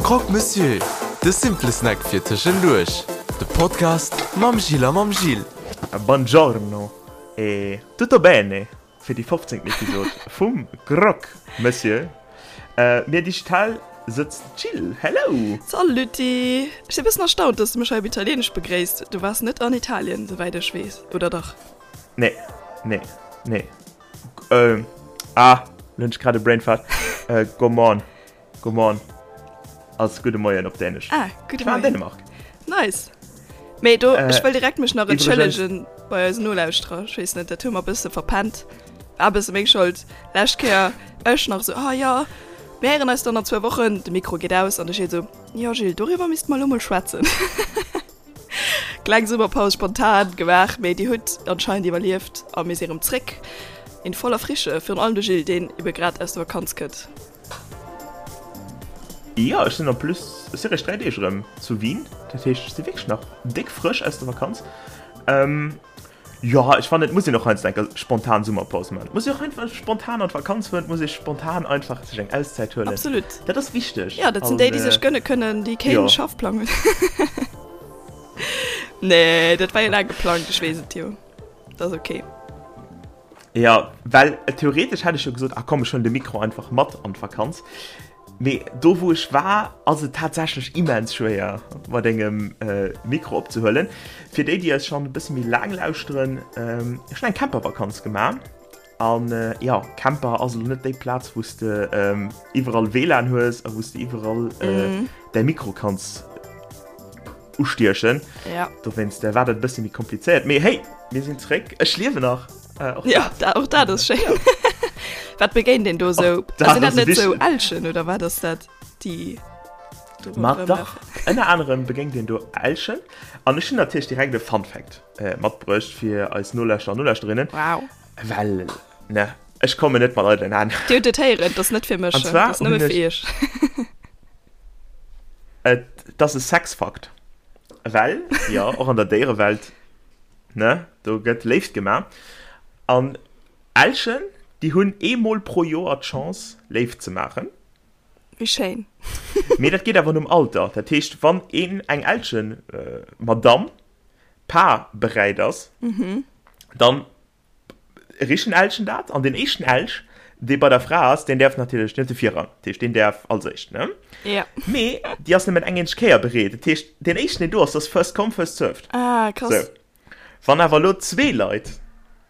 Croque Monsieur, de simple Snack fir tëschenduerch. De Podcast mam Gilles a mam Gilles. Buongiorno e tutto bene fir déi 15. Episod vum Croque Monsieur. Mir digital sëtzt d'Jill. Hello! Saluti! Ech si bëssen erstaunt, dass du mech hei op Italieenesch begréisst. Du waars net an Italien, souwäit ech weess, oder dach? Nee, nee, nee. Äh, ah, lo hunn ech grad e Brainfart. Äh, Godmorgen, Godmorgen ass gudde Moien op Dänesch. Ah, gudde Ich war an Moien. Dänemark. Nice. Mee do, Äh, ech wëll direkt mech nach iwwregens- entschëllegen bei eisen Nolauschterer. Ech weess net, dat hu mer e bësse verpennt. War e bësse meng Schold. Lescht Kéier ech nach esou, ah jo, mir héieren eis dann an zwou Wochen. De Mikro geet aus an de Gilles esou, jo Gilles, doriwwer misste mer elo mol schwätzen. Kleng Summerpaus spontan gemaach, mee dir hutt anscheinend iwwerlieft a mir si rëm zréck in voller Frische. Virun allem de Gilles, deen ebe grad aus der Vakanz kënnt. Jo, ech sinn en plus, ech si réischt 3 Deeg erëm zu Wien, dat heescht ech si wierklech nach déck frësch aus der Vakanz. Jo, ech fannen et muss een och heiansdo eng spontan Summerpaus man. Et muss een och einfach spontan an d'Vakanz fueren, et muss ee spontan einfach sech eng Auszäit huelen. Absolut. Dat ass wichteg. Jo, dat sinn déi, déi sech gënne kënnen, déi keen Schaffplang hunn. Nee, dat war jo laang geplangt, ech weess et jo. Dat ass ok. Jo, well theoretesch hätt ech jo gesot, ah komm, ech huelen de Mikro einfach mat an d'Vakanz. Mee do wou ech war ass et tatsächlech immens schwéier mat engem Mikro opzehuelen. Fir déi déi eis schonn e bësse méi laang lauschteren, ech hunn eng Campervakanz gemaach an jo Camper ass elo net déi Plaz wou s de iwwerall WLAN hues a wou s de iwwerall däi Mikro kanns ustiechen. Dowéinst war dat e bësse méi komplizéiert. Mee hey, mir sinn zréck, ech liewen nach. Äh, och ja, da, och dat ass schéin. Wat begéint een do sou? Sinn dat net sou Elchen oder wat ass dat déi do Ma dach, ënner anerem begéint een do Elchen. An ech hunn natierlech direkt e Fun Fact äh, matbruecht fir eis Nolauschterer an Nolauschterinnen. Wow. Well, ne, ech kommen net mat eidelen Hänn. Dir hutt et héieren, et ass net fir mech, An zwar et ass nëmme hunn fir ech. iech. Et ass e Sexfakt. Well, jo, och an der Déierewelt Ne, do gëtt Léift gemaach. An Elchen, déi hunn eemol pro Joer d'Chance, Léift ze maachen. Wéi schéin. Mee dat geet awer nom Alter. Dat heescht, wann een, eng Elchen-Madamm, paarbereit ass, dann Richen Elchen dat an den éischten Elch, dee bei der Fra ass, deen däerf natierlech, deen huet de Virrang, dat heescht, deen däerf als éischt, ne? Ja. Mee déi ass nëmmen eng eenzeg Kéier bereet, dat heescht, deen éischten, deen do ass, dat ass first come, first served. Ah, krass. Sou. Wann awer elo zwee Leit,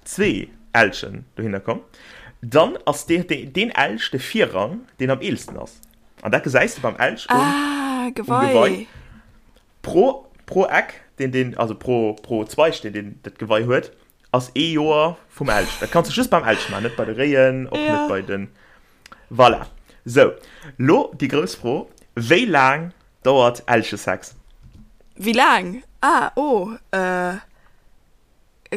zwee Elchen dohinner kommen, dann ass dee, deen Elch de Virrang, deen am eelsten ass. An dat gesäis de beim Elch um, Ah, um Gewei. Gewei. Pro, pro Eck, deen deen, also pro, pro Zweig, deen deen dat Gewei huet, ass ee Joer vum Elch. Dat kanns du just beim Elch maachen, net bei de Réien, och net bei den. Voilà. Sou, lo déi grouss Fro, Wéi laang dauert Elchesex? Wéi laang? Ah, oh, äh,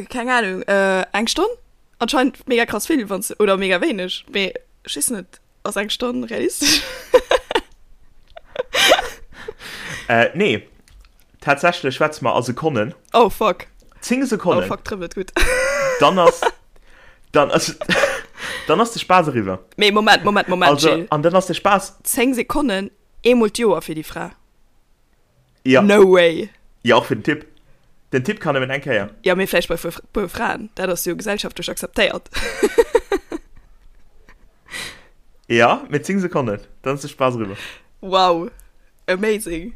keng Ahnung, äh, eng Stonn? Anscheinend mega krass vill, wanns, oder mega wéineg, mee ech weess net. Ass eng Stonn realistesch? Äh, nee. Tatsächlech schwätze mer a Sekonnen. Oh fuck. 10 Sekonnen. Oh fuck, trëppelt gutt. Dann ass, dann ass, dann ass de Spaass eriwwer. Mee Moment, Moment, Moment, Also, Gilles. an dann ass de Spaass. 10 Sekonnen, eemol d'Joer fir déi Fra? Ja. No way. Ja, och fir den Typ. Den Typ kann nëmmen eng Kéier. Ja, mee vläicht bei puer Fraen. Dat ass jo gesellschaftlech akzeptéiert. Ja, mee 10 Sekonnen, dann ass de Spaass eriwwer. Wow, amazing.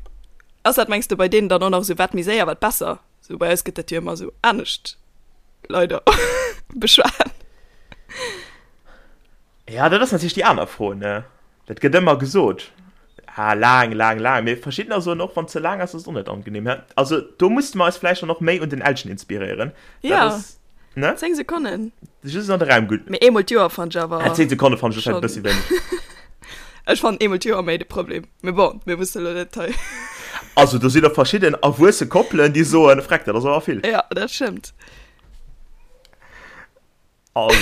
Ass dat, mengs de, bei deenen dann och nach esou, wat méi séier, wat besser? Sou bei eis gëtt dat jo ëmmer esou anescht leider beschwat. Ja, dat ass natierlech déi aner Fro, ne? Dat gëtt ëmmer gesot, ah, laang, laang, laang. Mee verschiddener soen och, wann et ze laang ass, ass et och net angenehm. Hä? Also do musste mer eis vläicht dann och méi un den Elchen inspiréieren. Dat Ja, ass, ne? 10 Sekonnen. Just an de Raum gutt. Mee eemol d'Joer fannt ech awer Ah, 10 Sekonne fannt ech vläicht e schonn. bëssi wéineg. Ech fannen eemol d'Joer méi de Problem. Mee bon, mir musse lo net hei. Also do sinn och verschidden erwuesse Koppelen, déi soen, Freck, dat ass awer vill. Ja, dat stëmmt. Also,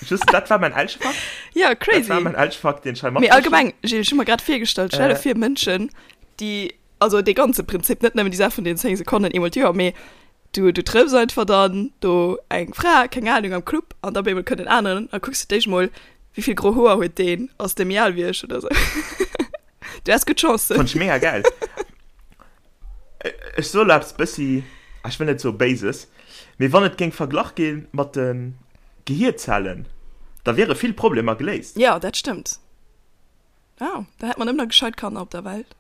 just, dat war mein Elchefakt. Ja, crazy. Dat war mein Elchefakt, den ich hei Mee allgemeng, Gilles, ech hu mer grad virgestallt, stell dir vir, Mënschen, déi, also dee ganze Prinzip, net nëmmen déi Saach vun den 10 Sekonnen eemol d'Joer, mee du, du trëffs einfach dann do eng Fra, keng Ahnung, am Club an da op eemol kënnt en aneren a kucks du d'éischt mol, wéi vill gro Hoer huet deen, ass dee méi al wéi ech oder sou. Du has gutt Chancen. Fand ech mega geil. Ech soe lo eppes bëssi, ah, ech wëll net soe Béises, mee wann et géing verglach gi mat de Gehierzellen, da wiere vill Problemer geléist. Jo, dat stëmmt. Ah, da hätt mer nëmmen nach gescheit Kanner op der Welt.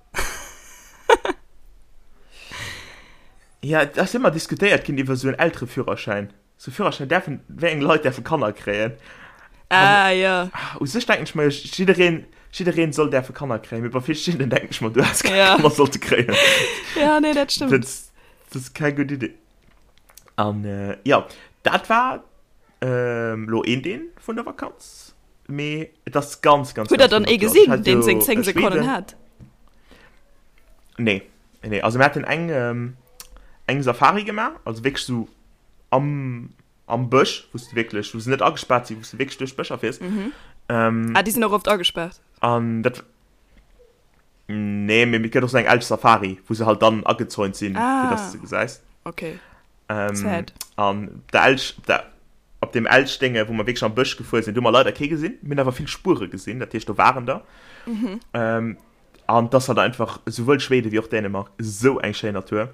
Ja, et ass ëmmer diskutéiert ginn iwwer esou en Eltereführerschäin. Sou Führerschäin däerfen, wéi eng Leit däerfe Kanner kréien? Ah, jo. U sech denken ech mer jo, jiddereen, jiddereen soll däerfe Kanner kréien, mee bei verschiddenen denken ech mer, du häss keng Ja. Kanner sollte kréien. Ja, nee, dat stëmmt. Dat, dat ass keng gutt Idee. An jo, dat war elo een Deel vun der Vakanz. Mee et ass ganz, ganz, Hutt der ganz dann vill ee Natur. Also ech gesinn, hat deen jo seng 10 Sekonnen Schweden. hat? Nee, nee. Also mir haten eng, ähm, eng Safari gemaach, also wierklech sou am, am Bësch, wou s de wierklech, wou se net agespaart sinn, wou s de wierklech duerch d'Bëscher fiers. Mhm. Ähm, Ah, déi sinn och oft agespaart. an dat, nee, mee et gëtt och sou eng Elch-Safari, wou se halt dann agezäunt sinn, fir dass Ah. de se gesäis. Okay. Ähm, Sad. an der Elch, op der, op dem Elchdénge, wou mer wierklech am Bësch gefuer sinn, do hu mer leider kee gesinn. Mir hunn awer vill Spuere gesinn, dat heescht, do waren der. Mhm. Ähm, an 't ass halt einfach, souwuel Schweden wéi och Dänemark, esou eng schéin Natur.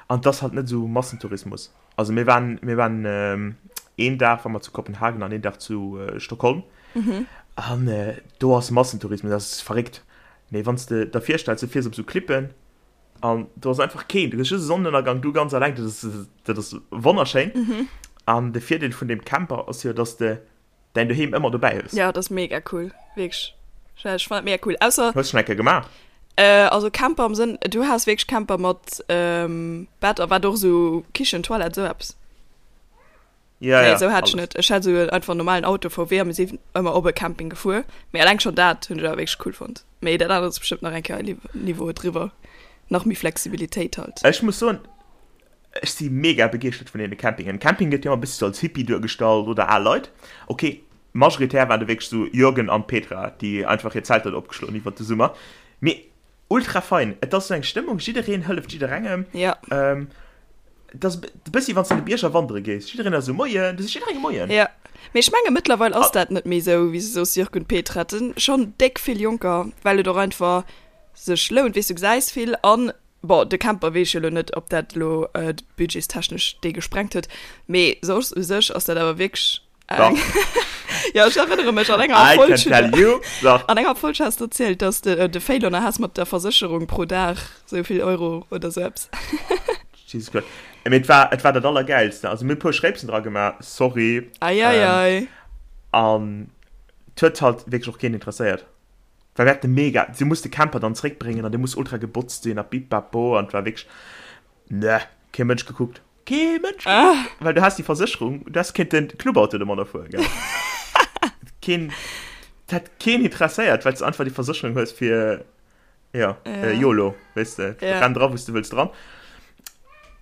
An 't ass halt net esou Massentourismus. Also mir waren, mir waren ähm, een Dag war mer zu Kopenhagen an een Dag zu äh, Stockholm. Mhm. An äh, do ass Massentourismus, dat ass verréckt. Mee wann s de der virstells, du fiers op esou Klippen, An do ass einfach keen, du hues just e Sonnenënnergang, du ganz alleng, dat ass, dat ass wonnerschéin. Mhm. An de Virdeel vun deem Camper ass jo, dass de däin Doheem ëmmer dobäi hues. Ja, dat ass mega cool, wierklech. Ech fannen dat mega cool. Ausser. Hues schonn eng Kéier gemaach? Äh, also Camper am Sënn, du has wierklech Camper mat ähm, Bett a wat och esou Kichen, Toilette, esou eppes. Ja, Nee, ja, esou hat ech alles. net. Ech hat esou einfach en normalen Auto, VW, a mir sinn ëmmer op e Camping gefuer. Mee eleng schonn dat hunn ech awer wierklech cool fonnt. Mee dat anert ass bestëmmt nach eng Kéier e Niveau driwwer. Nach méi Flexibilitéit halt. Ech muss soen, ech si mega begeeschtert vun deene Campingen. Camping gëtt jo ëmmer e bëssi sou als Hippie duergestallt oder al Leit. Ok, majoritär waren do wierklech sou Jürgen an Petra, déi einfach hir Zelter do opgeschloen hunn iwwert de Summer. Mee Ultra fein, et ass sou eng Stëmmung, jiddereen hëlleft jidderengem. Ja. Ähm, et ass e bëssi wann s de an de Bierger wandere gees, jiddereen ass esou Moien, du sees jidderengem Moien. Ja, mee ech menge mëttlerweil ass dat net méi esou, wéi s de soos, Jörg und Petra, et sinn schonn déck vill Jonker, well et och einfach sech lount, weess du, gesäis vill an, bon, de Camper weess ech jo elo net, ob dat elo budgetstechnesch dee gesprengt huet, mee soss u sech ass dat awer wierklech Dach. Ja, ech erënnere mech, an enger I Folg can tell you. Dach. An enger Folg has de erzielt, dass de de Fail has mat der Versécherung pro Dag sou vill Euro oder sou eppes. Jesus Christ. Mee et war, et war dat Allergäilste. Also mir hu e puer Schréipsen dra gemaach, sorry. Ei, ei, ei. An et huet halt wierklech och keen interesséiert. Well mir haten mega, du muss de Camper dann zréckbréngen an dee muss ultra gebotzt sinn a bippapo an et war wierklech, ne, kee Mënsch gekuckt. Kee Mënsch ah. Well du has déi Versécherung, du häss kéinten Clubauto domadder fueren, gell? Keen, dat hätt keen interesséiert, well s de einfach déi Versécherung hues fir, ja, ja. Äh, YOLO, weess de, ja. renn dra, wou s de wëlls dran.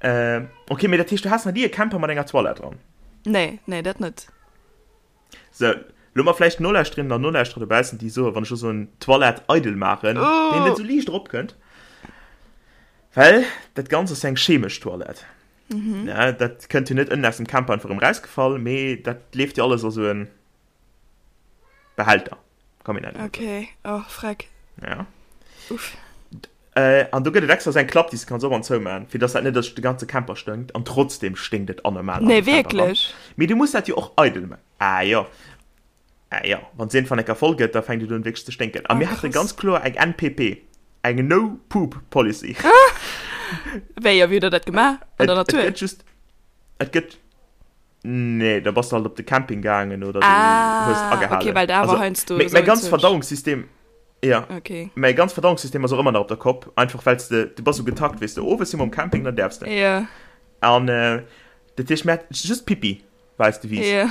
Äh, okay, mee dat heescht, du has nach ni e Camper mat enger Toilette dran? Nee, nee, dat net. Sou, lo mer vläicht Nolauschterinnen an Nolauschterer dobaussen, déi soen, wann ech lo soen, Toilette eidel maachen, Oh. deen net sou liicht eropkënnt. Well dat Ganzt ass jo eng chemesch Toilette. Mhm. Ja, dat kënnt jo net ënnen aus dem Camper einfach erëm rausgefall, mee dat leeft jo alles a sou en Behälter. Komm, mir nennen et esou. Okay, oh, freck. Ja. Uff. Äh, an do gëtt et extra sou eng Klapp, déi s de kanns op an zou maachen, fir dass dat net duerch de ganze Camper stënkt. An trotzdem sténkt et anormal an Nee, de Camper ran. wierklech? Mee du muss dat jo och eidel maachen. Ah jo. Ah jo, wann se iergendwann eng Kéier voll gëtt, da fänkt et un wierklech ze sténken. A Ah, mir hate krass. ganz kloer eng NPP, eng No Poop Policy. Wéi, a wéi hutt der dat gemaach? An Et, der et Natur? gëtt just, et gëtt, nee, da bass de halt op de Camping gaangen oder du hues Ah, okay, agehalen. well da war Also, heiansdo mäi, esou mäi en ganz Zeug. Verdauungssystem, ja, Okay. mäi ganz Verdauungssystem ass och ëmmer nach op der Kopp, einfach well s de, du bass sou getakt, weess de, owes si mer um Camping, dann däerfs de. Ja, An dat heescht, mir hat just Pipi war eis Devise. ja.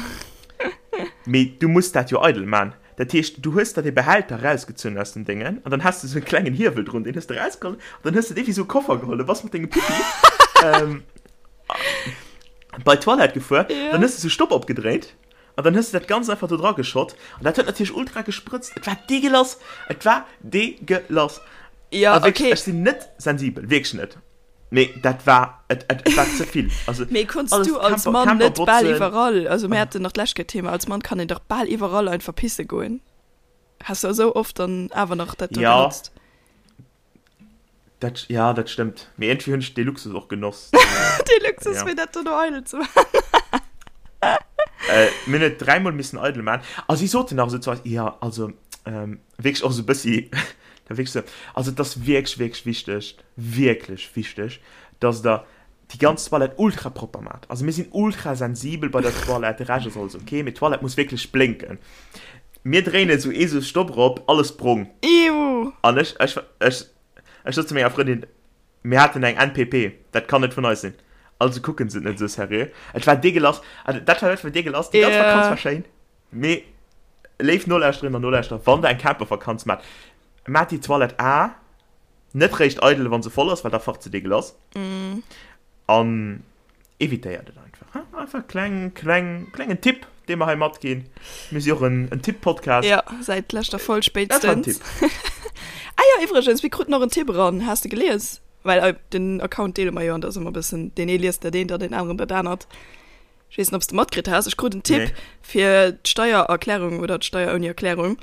Mee du muss dat jo eidel man. Dat heescht, du hues der dee Behälter rausgezunn aus dem Déngen an dann has de sou e klengen Hiewel drun, deen hues de rausgeholl an dann hues de dee wéi sou e Koffer geholl, du bass mat dengem Pipi ähm, bei d'Toilette gefuer, Ja. dann hues de sou Stopp opgedréit an dann hues de dat Ganzt einfach do dra geschott an dat huet natierlech ultra gesprëtzt. Et war deegelass, et war deegelass. Ja, A wierklech, okay. ech sinn net sensibel, wierklech net. Mee dat war, et, et, et war ze vill. Also, Mee konns alles du als Camper, Mann Camper net bal botzen. iwwerall, also mir haten nach d'lescht Kéier d'Thema, als Mann kann een dach bal iwwerall einfach pisse goen. Has du esou oft dann awer nach dat do Ja. genotzt? Dat, ja, dat stëmmt. Mee iergendwéi hunn ech dee Luxus och genoss. Dee Luxus, Ja. fir dat dono eidel ze maachen. Äh, mir hunn et dräimol missen eidel maachen. A si soten nach esou zu eis, jo, also, ähm, wierklech och esou e bëssi, da wierklech esou, also et ass wierklech, wierklech wichteg, wierklech wichteg, dass Der déi ganz Toilette ultra propper maacht. Also mir sinn ultra sensibel bei der Toilette, de Rescht ass alles ok, mee d'Toilette muss wierklech blénken. Mir dréinen esou ee sou Stopp erop, alles brong. Iuh! An ech, ech, ech, ech sot zu menger Frëndin, mir haten eng NPP, dat kann net vun eis sinn. Also kucken se et net esou seriö. Et war deegelass, also dat war dat war deegelass, déi ganz Vakanz war schéin, mee léif Nolauschterinnen an Nolauschterer, wann der eng Campervakanz maacht, maacht déi Toilette A net réischt eidel, wa se voll ass, well da facht se deegelass. An Evitéiert et einfach. Hein? Einfach kleng, kleng, klengen Tipp, dee mer hei matginn. Mir si och en, en Tipp-Podcast. Ja, säit leschter Folg Dat war en spéitstens. Tipp. Ah jo, iwwregens, mir kruten och en Tipp eran. Has de gelies? Well äh, den Account deele mer jo an da ass ëmmer e bëssen, deen ee liest dat eent an deen aneren dat anert. Ech weess net, ob s de matkritt has. Ech krut en Tipp Nee. fir d'Steiererklärung oder d'Steier ouni Erklärung,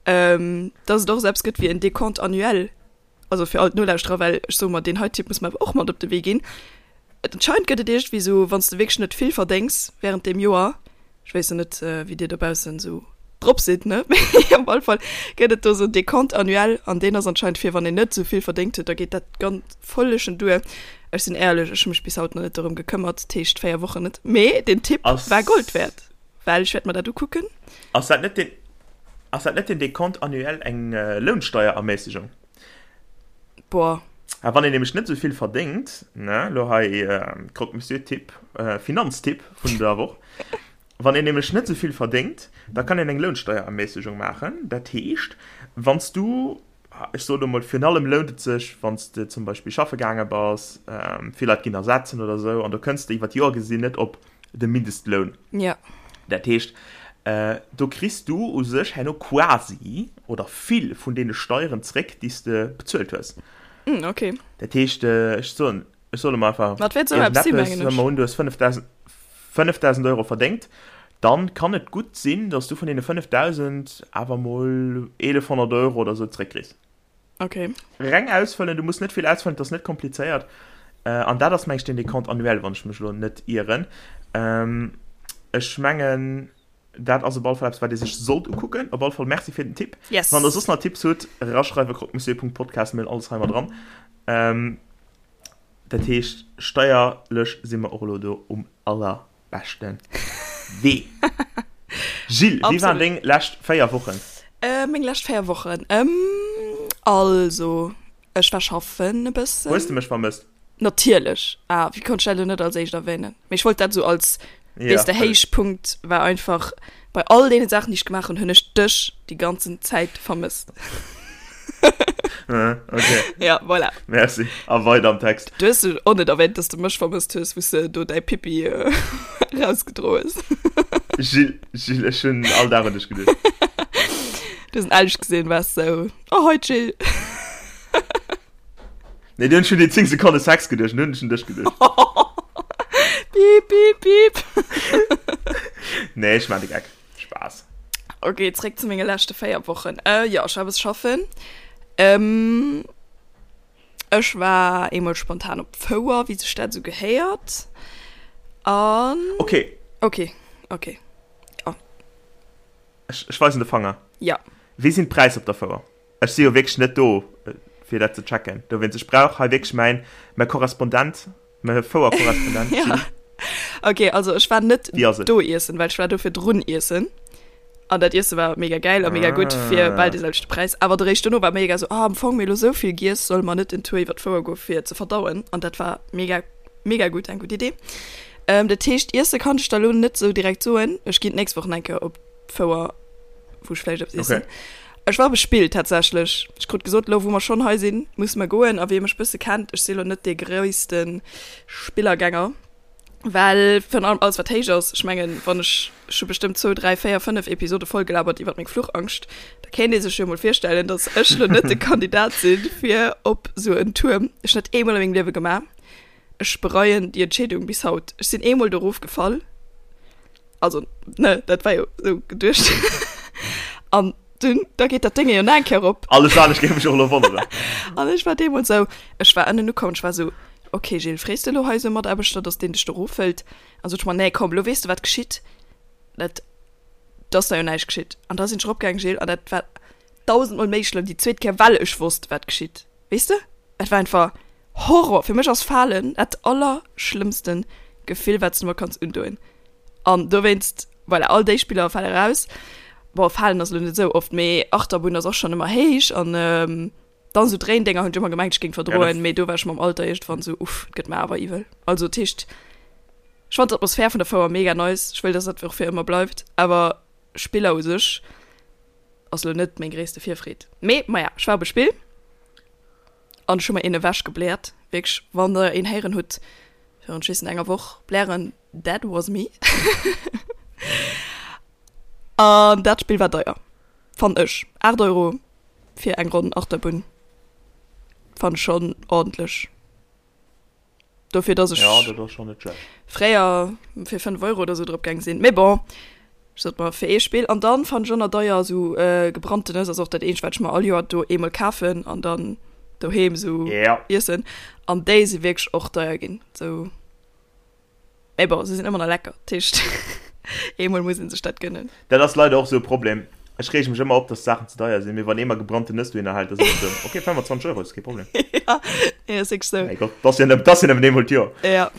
ähm, dass et och esou eppes gëtt wéi en Décompte annuel. Also fir all d'Nolauschterer, well ech soe mer, deen hei Tipp muss mer awer och mat op de Wee ginn. Et anscheinend gëtt et iergendwéi esou, wann s de wierklech net vill verdéngs während deem Joer, ech weess jo net, wéi dir dobaussen esou drop sidd, ne, mee op alle Fall gëtt et do esou en Décompte annuel an deen ass anscheinend fir wann een net esou vill verdéngt huet, da geet dat ganz völlechen duer. Ech sinn éierlech, ech hu mech bis haut nach net dorëm gekëmmert, dat heescht 4 Wochen net, mee deen Tipp war Gold wäert, well ech wäert mer dat ukucken. Ass dat net den, ass dat net den Décompte annuel eng Lounsteierermäßigung? Boah. A wann een nämlech net esou vill verdéngt, ne, lo hei Croque-Monsieur-Tipp, Finanztipp vun der Woch, wann een nämlech net esou vill verdéngt, da kann een eng Lounsteierermäßigung maachen. Dat heescht, wann s du, ech soe lo mol, virun allem lount et sech, wann s de zum Beispill schaffe gaange bass, vill Leit ginn ersetzen oder esou, an do kënns de iwwer d'Joer gesinn net op de Mindestloun. Ja. Dat heescht, do kriss du u sech herno quasi oder vill vun deene Steieren zréck, déi s de bezuelt hues. Mm, okay. Dat heescht, ech soen, ech soe mol einfach Wat wäert esou eppes sinn, mengen ech. Soe mer un, du hues 5.000, 5.000 Euro verdéngt, dann kann et gutt sinn, dass du vun deene 5.000 awer mol 1.100 Euro oder esou zréckkriss. Okay. Reng ausfëllen, du muss net vill ausfëllen, et ass net komplizéiert. Äh, an dat ass meng ech den Décompte annuel, wann ech mech elo net ieren. Ähm, ech mengen, dat ass op alle Fall eppes, wat ee sech sollt ukucken. Op alle Fall Merci fir den Tipp. Yes. Wann der soss nach Tipps hutt, eraschreiwe croque-monsieur.podcast, mir hunn alles hei mat dran. Ähm, dat heescht, steierlech si mer och elo do um allerbeschte Wee. Jill, wéi waren deng lescht 4 Wochen? Äh, meng lescht 4 Wochen? Ähm, also, ech war schaffen e bëssen. Hues de mech vermësst? Natierlech. Ah, wéi konnt ech dat elo net als éischt erwänen? Mee ech wollt dat esou als, Ja, weess de, Héichpunkt war einfach, bei all deene Saachen, déi ech gemaach hunn, hunn ech dech déi ganzen Zäit vermësst. Okay. Ja, voilà. Merci. A weider am Text. Du hues och net erwähnt, dass du mech vermësst hues, wou s de do däi Pipi äh, rausgedro hues. Gilles, Gilles, ech hunn all Dag un dech geduecht. Du hues en ehrlech gesinn, waars sou, oh hoi Jill. Nee, du hunn ech un déi 10 Sekonne Sex geduecht, nun hunn ech un dech geduecht. Piep, piep, piep. Nee, ech maan de Geck. Spaass. Ok, zréck zu menge leschte 4 Wochen. Äh, jo, ech war e bësse schaffen. Ähm, ech war eemol spontan op d'Fouer, wéi sech dat esou gehéiert. An. Ok. Ok, ok, jo. Ech, ech weisen de Fanger. Ja. Wéi sinn d'Präisser op der Fouer? Ech si jo wierklech net do, fir dat ze checken. Dowéinst, ech brauch hei wierklech mäin, mäi Korrespondent, mäi Fouer-Korrespondent, Ja. Jill. Ok, also ech war net Wéi ass et? do iessen, well ech war do virdrun iessen. An dat Iesse war mega gäil a mega gutt fir bal Ah. dee selwechte Präis. Awer de Réischt dono war mega sou, ah, am Fong mir elo sou vill giess, solle mer net en Tour iwwer d'Fouer goe fir ze verdauen? An dat war mega, mega gutt, eng gutt Idee. Ähm, dat heescht, iesse kann ech der elo net sou direkt soen. Ech ginn d'nächst Woch nach eng Kéier op d'Fouer, wou ech vläicht eppes iessen. Okay. Ech war bespillt tatsächlech. Ech krut gesot, elo wou mer schonn hei sinn, musse mer goen. A wie mech bësse kennt, ech si lo net dee gréisste Spillergänger, well virun allem alles wat héich ass, ech mengen, wann ech, ech hu bestëmmt zwou, dräi, véier, fënnef Episode vollgelabert iwwert meng Fluchangscht, da kéint ee sech jo mol virstellen, datt ech lo net de Kandidat sinn, fir op esou en Tuerm. Ech hunn dat eemol a mengem Liewe gemaach. Ech bereien déi Entscheedung bis haut. Ech sinn eemol do erofgefall. Also, ne, dat war jo esou geduecht. An. Dunn, da geet dat Dénge jo nach eng Kéier op. Alles anescht géif mech och elo wonneren. An ech war deemools esou, ech war ënnen ukomm, ech war esou, ok Gilles, frees de elo hei esou e Mataarbechter, dass deen dech do erofhëlt? An sot ech mer, nee komm, elo weess de wat geschitt, dat, do ass da jo näischt geschitt. An da sinn ech eropgaangen, Gilles, an dat war dausendmol méi schlëmm déi zweet Kéier, well ech wosst wat geschitt, weess de? Et war einfach Horror! Fir mech ass Falen dat allerschlëmmsten Gefill wat s de mer kanns undoen. An dowéinst, voilà, all déi Spiller fale raus. Bon, Falen ass elo net esou oft, mee Achterbunn ass och schonn ëmmer héich an dann esou Dréindénger hunn ech ëmmer gemengt ech géing verdroen, mee do war ech mam Alter iergendwann esou, uff, et gëtt mer awer iwwel. Also dat heescht, ech fannen d'Atmosphär vun der Fouer mega nice, ech wëll dass dat och fir ëmmer bleift, awer Spiller u sech ass elo net meng gréisste Virfreed. Mee maja, ech war op e Spill. An ech hu mer een ewech gebläert, wierklech, wann der een héieren hutt virun, ech weess net, enger Woch blären, that was me. An dat Spill war deier, fannen ech. 8 Euro fir eng Ronn Achterbunn fannen ech schonn ordentlech. Dofir dass ech ja, dat ass schon net schlecht. fréier fir 5 Euro oder sou drop gaang sinn. Mee bon, ech sot mer fir ee Spill. An dann fannen ech och nach deier sou äh, gebrannte Nëss ass och dat eenzegt wat ech mer all Joer do eemol kafen an dann doheem sou Ja. iessen. An déi si wierklech och deier ginn. Sou mee bon, se sinn ëmmer nach lecker. Dat heescht eemol muss een sech dat gönnen. Dat ass leider och sou e Problem. Ech reege mech ëmmer op, dass d'Saachen ze deier sinn, mee wann ee mer gebrannten Nëss dohinner hält, da sinn ech esou, ok, 25 Euro, ass kee Problem. Ja, nee, ass wierklech sou. Mäi Gott, dat ass jo nëmmen, dat ass jo nëmmen eemol d'Joer. Ja,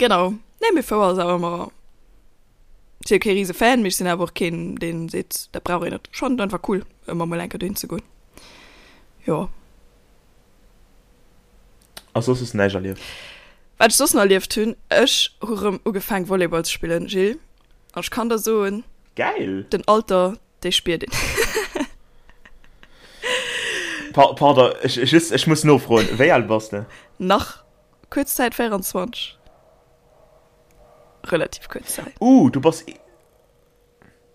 genau. Nee, mee Fouer ass awer ëmmer, ech si jo kee rise Fan, mee ech sinn awer och keen, deen seet, dat brauch een net. Ech fannen et einfach cool, ëmmer mol eng Kéier dohin ze goen. Jo. A soss hues de näischt erlieft? Wat ech soss nach erlieft hunn, ech hu rëm ugefaang Volleyball ze spillen, Gilles, an ech kann der soen, Gäil! Den Alter, dee spiert een. Pa pardon, ech, just, ech muss nofroen, wéi al bass de? Nach kuerz Zäit 24. Relativ kuerz Zäit. Uh, du bass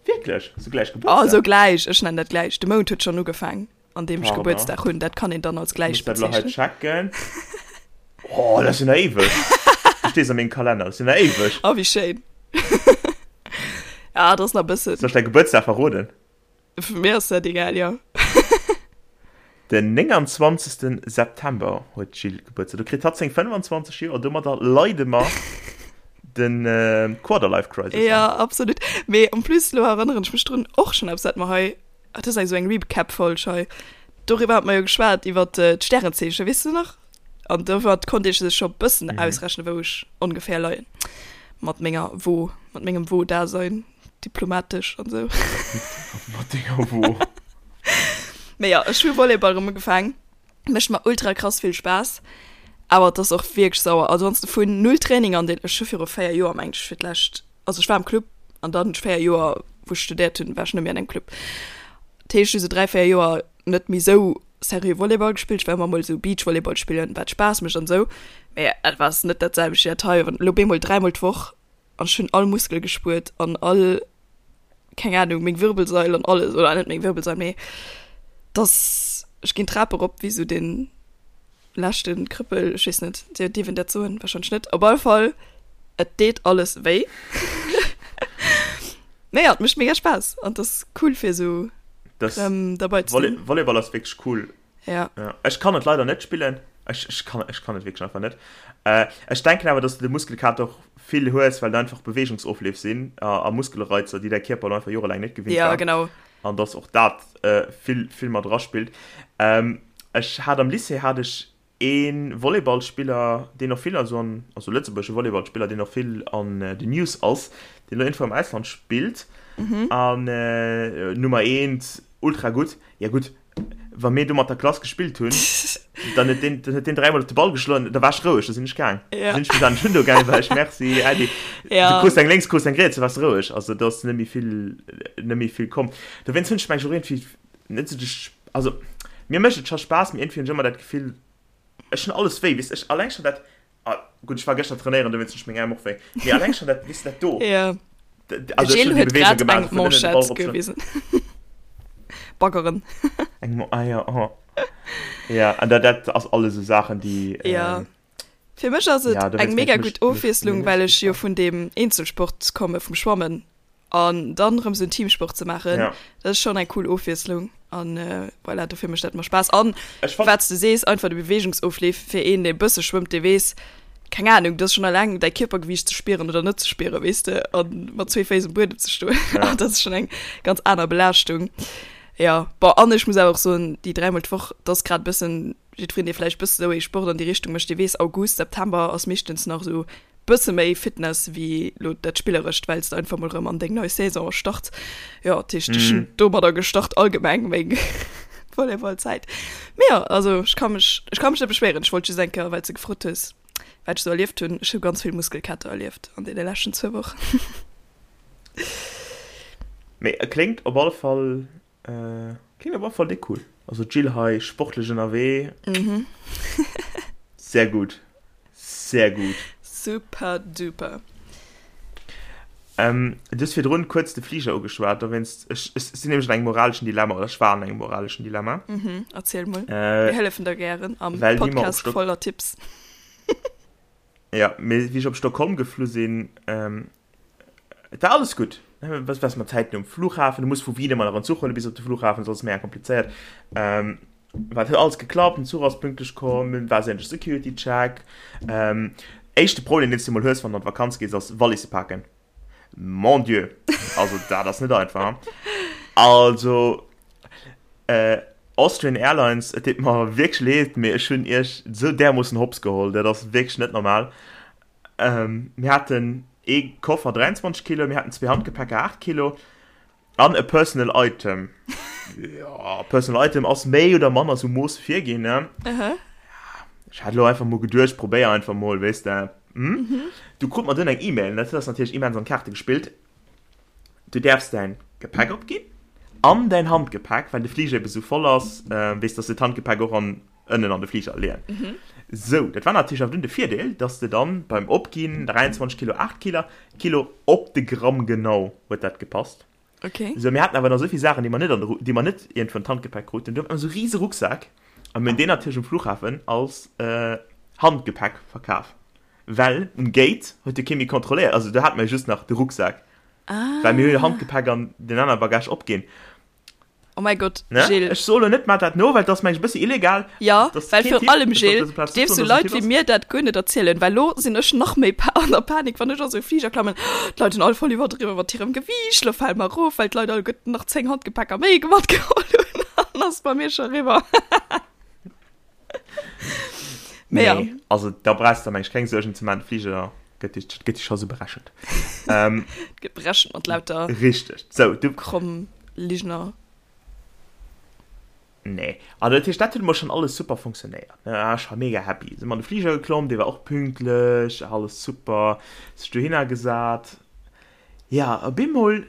wierklech sou gläich Gebuertsdag? Oh, sou gläich, ech nennen dat gläich. De Mount huet schonn ugefaang. an deem ech Gebuertsdag hunn, dat kann een dann als gläich bezeechnen. Checken. Oh, dat ass jo nach éiweg. Du stees a mengem Kalenner, dat ass jo nach éiweg. Oh, wéi schéin. Ja, dat ass nach e bëssen. Soll ech däi Gebuertsdag verroden? Fir mir ass dat egal, jo. Den 29. September huet d'Jill Gebuertsdag. Do kritt hatt seng 25 Joer. Domadder leide mer de Quarterlife Crisis an. Ja, absolut. Mee en plus, elo erënneren ech mech drun, och schonn eppes, wat mer hei Ah, dat ass eng sou eng Recap-Folg hei. Doriwwer hat mer jo geschwat, iwwer d'Stärenzeechen, weess de nach? An doriwwer konnt ee sech scho bëssen mhm. ausrechnen, wou ech ongeféier leien. Mat menger Wo, mat mengem Wo-Dasein, diplomatesch an sou. Mat denger Wo. Mee ja, ech hu Volleyball erëm ugefaang. Mécht mer ultra krass vill Spaass. Awer et ass och wierklech sauer. Also wann s de vun null Training an den, ech hu viru 4 Joer mengt ech fir d'lescht, also ech war am Club an dann hunn ech 4 Joer wou ech studéiert hunn, war ech net méi an engem Club. Dat heescht ech hu sou 3, 4 Joer net méi sou seriö Volleyball gespillt. Ech war ëmmer mol sou Beachvolleyball spillen, wat Spaass mécht an sou, mee et war net dat selwecht wéi dat hei. Wann elo bemol dräimol d'Woch an ech hunn all Muskel gespuert an all, keng Ahnung, meng Wirbelsail an alles, oder net meng Wirbelsail, mee dass ech ginn d'Trap erop wéi sou den leschte Krëppel, ech weess net, dierf een dat soen? Wahrscheinlech net. Op alle Fall, et deet alles wéi. Mee ja, et mécht mega Spaass an et ass cool fir sou rëm derbei ze sinn. Volleyball ass wierklech cool. Ja. Ja. Ech kann et leider net spillen. Ech, ech, kann, ech kann et wierklech einfach net. Äh, ech denken awer, dass du de Muskelkater och vill hues, well et einfach Bewegungsofleef sinn a, a Muskelreizer, déi däi Kierper elo einfach jorelaang net gewinnt Ja, war. genau. An dass och dat äh, vill, vill mat eraspillt. Ähm, ech hat am Lycée hat ech ee Volleyballspiller, deen och vill also an, also lëtzebuergesche Volleyballspiller, deen och vill an äh, den News ass, deen elo iergendwou am Ausland spillt. Mhm. An äh, Nummer eent, ultra gutt. Ja gutt, wa mir do mat der Klass gespillt hunn, dann huet deen, dann huet deen dräimol op de Ball geschloen, da war ech roueg, da sinn ech gaang. Ja. Da sinn ech bis an den Hundo gaang, war ech merci, Äddi. Ja. Du krus eng lénks, krus eng riets, da waars de roueg. Also do ass net méi vill, net méi vill komm. Dowéinst hunn ech meng och iergendwéi net sou de, also mir mécht et scho Spaass, mee iergendwéi hunn ech ëmmer dat Gefill, ech hunn alles wéi, weess ech, alleng schonn dat, Ah, gutt, ech war gëschter trainéieren, dowéinst hunn ech meng Äerm och wéi. Mee alleng schonn dat, weess de, dat do. Ja. Also ech Gilles hunn déi huet Beweegung grad gemaach, eng vun ënnen de Ball Manchette eropschloen. gewisen. Baggeren. Eng Mo, ah ja, oh. Ja, an dat, dat ass alles esou Saachen, déi, Ja. ähm, Fir mech ass et ja, eng dowéinst mega mech, gutt mech, Ofwiesslung, mech well ech jo gefallen. vun deem Eenzelsport komme vum Schwammen. An dann erëm esou en Teamsport ze maachen, ja. dat ass schonn eng cool Ofwiesslung. An äh, voilà, dofir mécht dat mer Spaass. An wat s du sees, einfach de Beweegungsofleef fir een, dee e bësse schwëmmt, dee weess, keng Ahnung, dat ass schonn alleng däi Kierpergewiicht ze spieren oder net ze spieren, weess de, a mat zwee Féiss um Buedem ze stoen, ja. dat ass schonn eng ganz aner Belaaschtung. Ja, bon, an ech muss awer och soen, déi dräimol d'Woch, dat ass grad e bëssen, jiddwereen, dee vläicht e bësse sou ee Sport an déi Richtung mécht, dee weess, August, September ass meeschtens nach esou Bësse méi Fitness wéi lo dat Spillerescht, well s de einfach mol rëm an deng nei Saison starts. Jo, dat heescht, ech hunn domadder gestart allgemeng meng Volleyballzäit. Mee jo, also ech ka mech, ech ka mech net beschwéieren. Ech wollt just eng Kéier, well s de gefrot hues, wat ech sou erlieft hunn. Ech hu ganz vill Muskelkater erlieft an deene leschten zwou Wochen. Mee e kléngt op alle Fall Klingt op alle Fall déck cool. Also d'Jill hei sportlech ënnerwee. Mhm. Sehr gut. Sehr gut. Super duper. Ähm, du hues virdrun kuerz de Fliger ugeschwat, dowéinst, ech, ech sinn nämlech an engem moraleschen Dilemma, oder ech war an engem moraleschen Dilemma. Mhm, erziel mol. Äh, Mir hëllefen der gären am well wéi mer op Podcast Stock voller Tipps. Ja, mee wéi ech op Stockholm geflu sinn, ähm, Et war alles gutt. Was was mat Zäiten um Flughafen, du muss vu Wien ëmmer nach en Zuch huele bis op de Flughafen, soss ass mega komplizéiert. Ähm, wat huet alles geklappt, den Zuch ass pünktlech komm, et war sämtlech Security Check. Ähm, éischte Problem, deen s du mol hues, wann du an d'Vakanz gees, ass Walisse paken. Mon Dieu! Also dat ass net einfach. Also äh, Austrian Airlines, et deet mer wierklech leed, mee ech hunn iech esou därmoossen hops geholl, dat ass wierklech net normal. Ähm, mir haten ee Koffer 23 Kilo, mir haten zwee Handgepäcker 8 Kilo an e Personal Item. Ja, Personal Item ass méi oder manner sou Mooss virginn, ne? Aha. Ech hat elo einfach mol geduecht, probéier einfach mol, weess de. Hm? Mhm. Du krut mer dunn eng E-Mail, dat ass natierlech immens an d'Kaarte gespillt. Du däerfs däin Gepäck opginn an däin Handgepäck, well de Fliger ebe sou voll ass, äh, weess, dass de d'Handgepäck och an ënnen an de Fliger leeën. Sou, dat war natierlech awer dunn de Virdeel, dass de dann beim Opginn 23 Kilo, 8 Kilo, Kilo op de Gramm genau huet dat gepasst. Okay. Sou, mir haten awer nach esou vill Saachen, déi mer net an de Ru-, déi mer net iergendwou an d'Handgepäck kruten. Du hat mer esou rise Rucksak a mir hunn deen natierlech um Flughafen als Handgepäck verkaf, well um Gate huet jo kee méi kontrolléiert, also do hate mer jo just nach de Rucksak, well mir hu jo Handgepäck an den anere Bagage opginn. Oh mäi Gott, Ne? Gilles. Ech soe lo net, maach dat no, well dat ass mengen ech e bëssi illegal. Ja, Dat ass well keen virun Tipp, allem, ech soll op Gilles, dëser Plaz net dierfs soen, du dass et en Leit Tipp wéi ass. mir dat guer net erzielen, well lo sinn ech nach méi pa an der Panik, wann ech a sou e Fliger klammen, d'Leit hunn all voll iwwerdriwwe mat hirem Gewiicht, lo fale mer erof, well d'Leit alleguerten nach 10 Handgepäcker méi matgeholl hunn, an ass bei mir scho eriwwer. Mee ja. Nee, also da brauchs de der mengen ech keng Suergen ze maachen, de Fliger gëtt dich, gëtt dich scho sou berechent. Ähm, Gëtt berechent mat lauter Richteg. Sou, du. kromm Ligner. Nee, also dat heescht, dat huet emol schonn alles super funktionéiert, ne? Ech war mega happy. Sinn mer an de Fliger geklomm, dee war och pünktlech, alles super, sech dohinner gesat. Ja, op eemol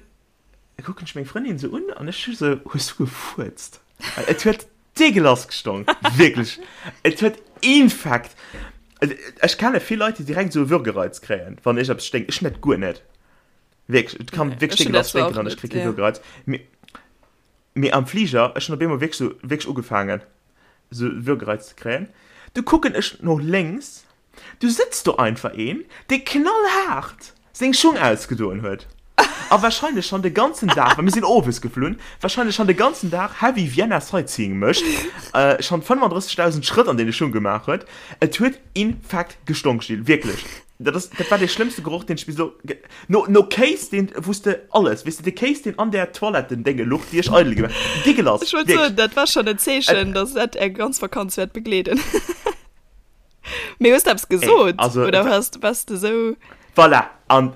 kucken ech meng Frëndin sou un an ech hu sou, Hues du gefuerzt? Well et huet deegelass gestonk, wierklech. Et huet infekt. Ech kenne vill Leit, déi direkt sou e Würgereiz kréien, wann iergendeppes sténkt. Ech net, guer net. Wierklech, et kann wierklech deegelass sténken an ech kréie kee Würgereiz. Mee, mee am Fliger, ech hunn op eemol wierklech sou, wierklech ugefaangen, sou Würgereiz ze kréien. Du kucken ech no lénks Du sëtzt do einfach een, dee knallhaart seng Schung ausgedoen huet a wahrscheinlech schonn de ganzen Dag, well mir sinn owes geflunn, wahrscheinlech schonn de ganzen Dag heavy Vienna Sightseeing mécht, schonn 35.000 Schrëtt an deene Schung gemaach huet. Et huet infekt gestonk, Gilles, wierklech. Dat ass, dat war dee schlëmmste Geroch, deen ech bis elo, no, no Kéis, deen, wou s de alles, weess de, de Kéis, deen an där Toilettendénge luch, déi ech eidel gemaach, deegelass, Ech wollt soen, dat war schonn en Zeechen, dass dat är ganz Vakanz wäert begleeden. Mee hues de eppes gesot? Also, Oder wars, wars de sou. Voilà, an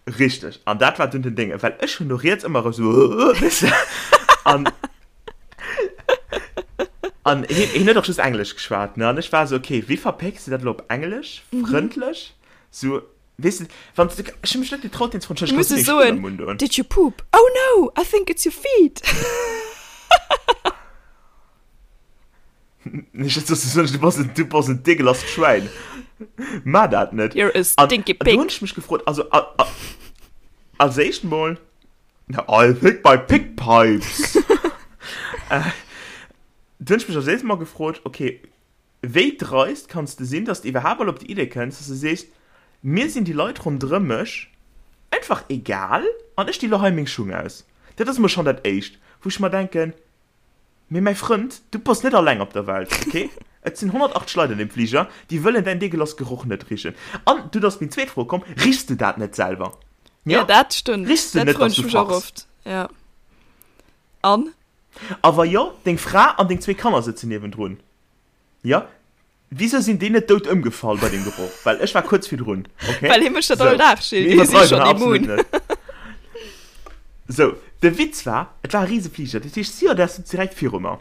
richteg. An dat war dunn den Dénge, well ech hunn no riets ëmmer erëm sou, weess de, an an hien, hien huet och just Englesch geschwat, ne, an ech war sou, okay, wéi verpécks de dat elo op Englesch, frëndlech, sou, weess de, wann s de, ech hu mech net getraut, deen ze froen, Du muss Entschëlleg, e kanns du meng Schung soen, am Mund doen? Did you poop? Oh no, I think it's your feet. Ech hätt soss gesot, du bass en, du bass en degelasst Schwäin. Maach dat net. You're a stinky An pig. do hunn ech mech gefrot, also a, a, als éischt mol, I think my pig pipes. Äh, do hunn ech mech als éischt mol gefrot, okay, wéi dreist kanns de sinn, dass de iwwerhaapt mol op déi Idee kënns, dass de sees, mir sinn déi Leit ronderëm mech einfach egal. An ech di lo hei meng Schung aus. Dat ass emol schonn dat Éischt, wou ech mer denken, Mee mäi Frënd, du bass net alleng op der Welt, ok? Et sinn 180 Leit an deem Fliger, déi wëllen däin deegelass Geroch net richen. An dunn ass meng zweet Fro komm, Richs du dat net selwer? Ja, dat stëmmt. Richs du Dat net, froen dass ech du mech och fachs? oft, ja. An? A wa jo, deng Fra an deng zwee Kanner sëtzen niewendrun, jo? Wisou sinn déi net dout ëmgefall bei deem Geroch? Well ech war kuerz virdrun, okay? Well hie mécht dat Sou, all Dag, Gilles. mir Déi si iwwerdreiwen schonn hei absolut immun. net. Sou, de Witz war, et war e rise Fliger, dat heescht d'Stewardess sot direkt viru mer.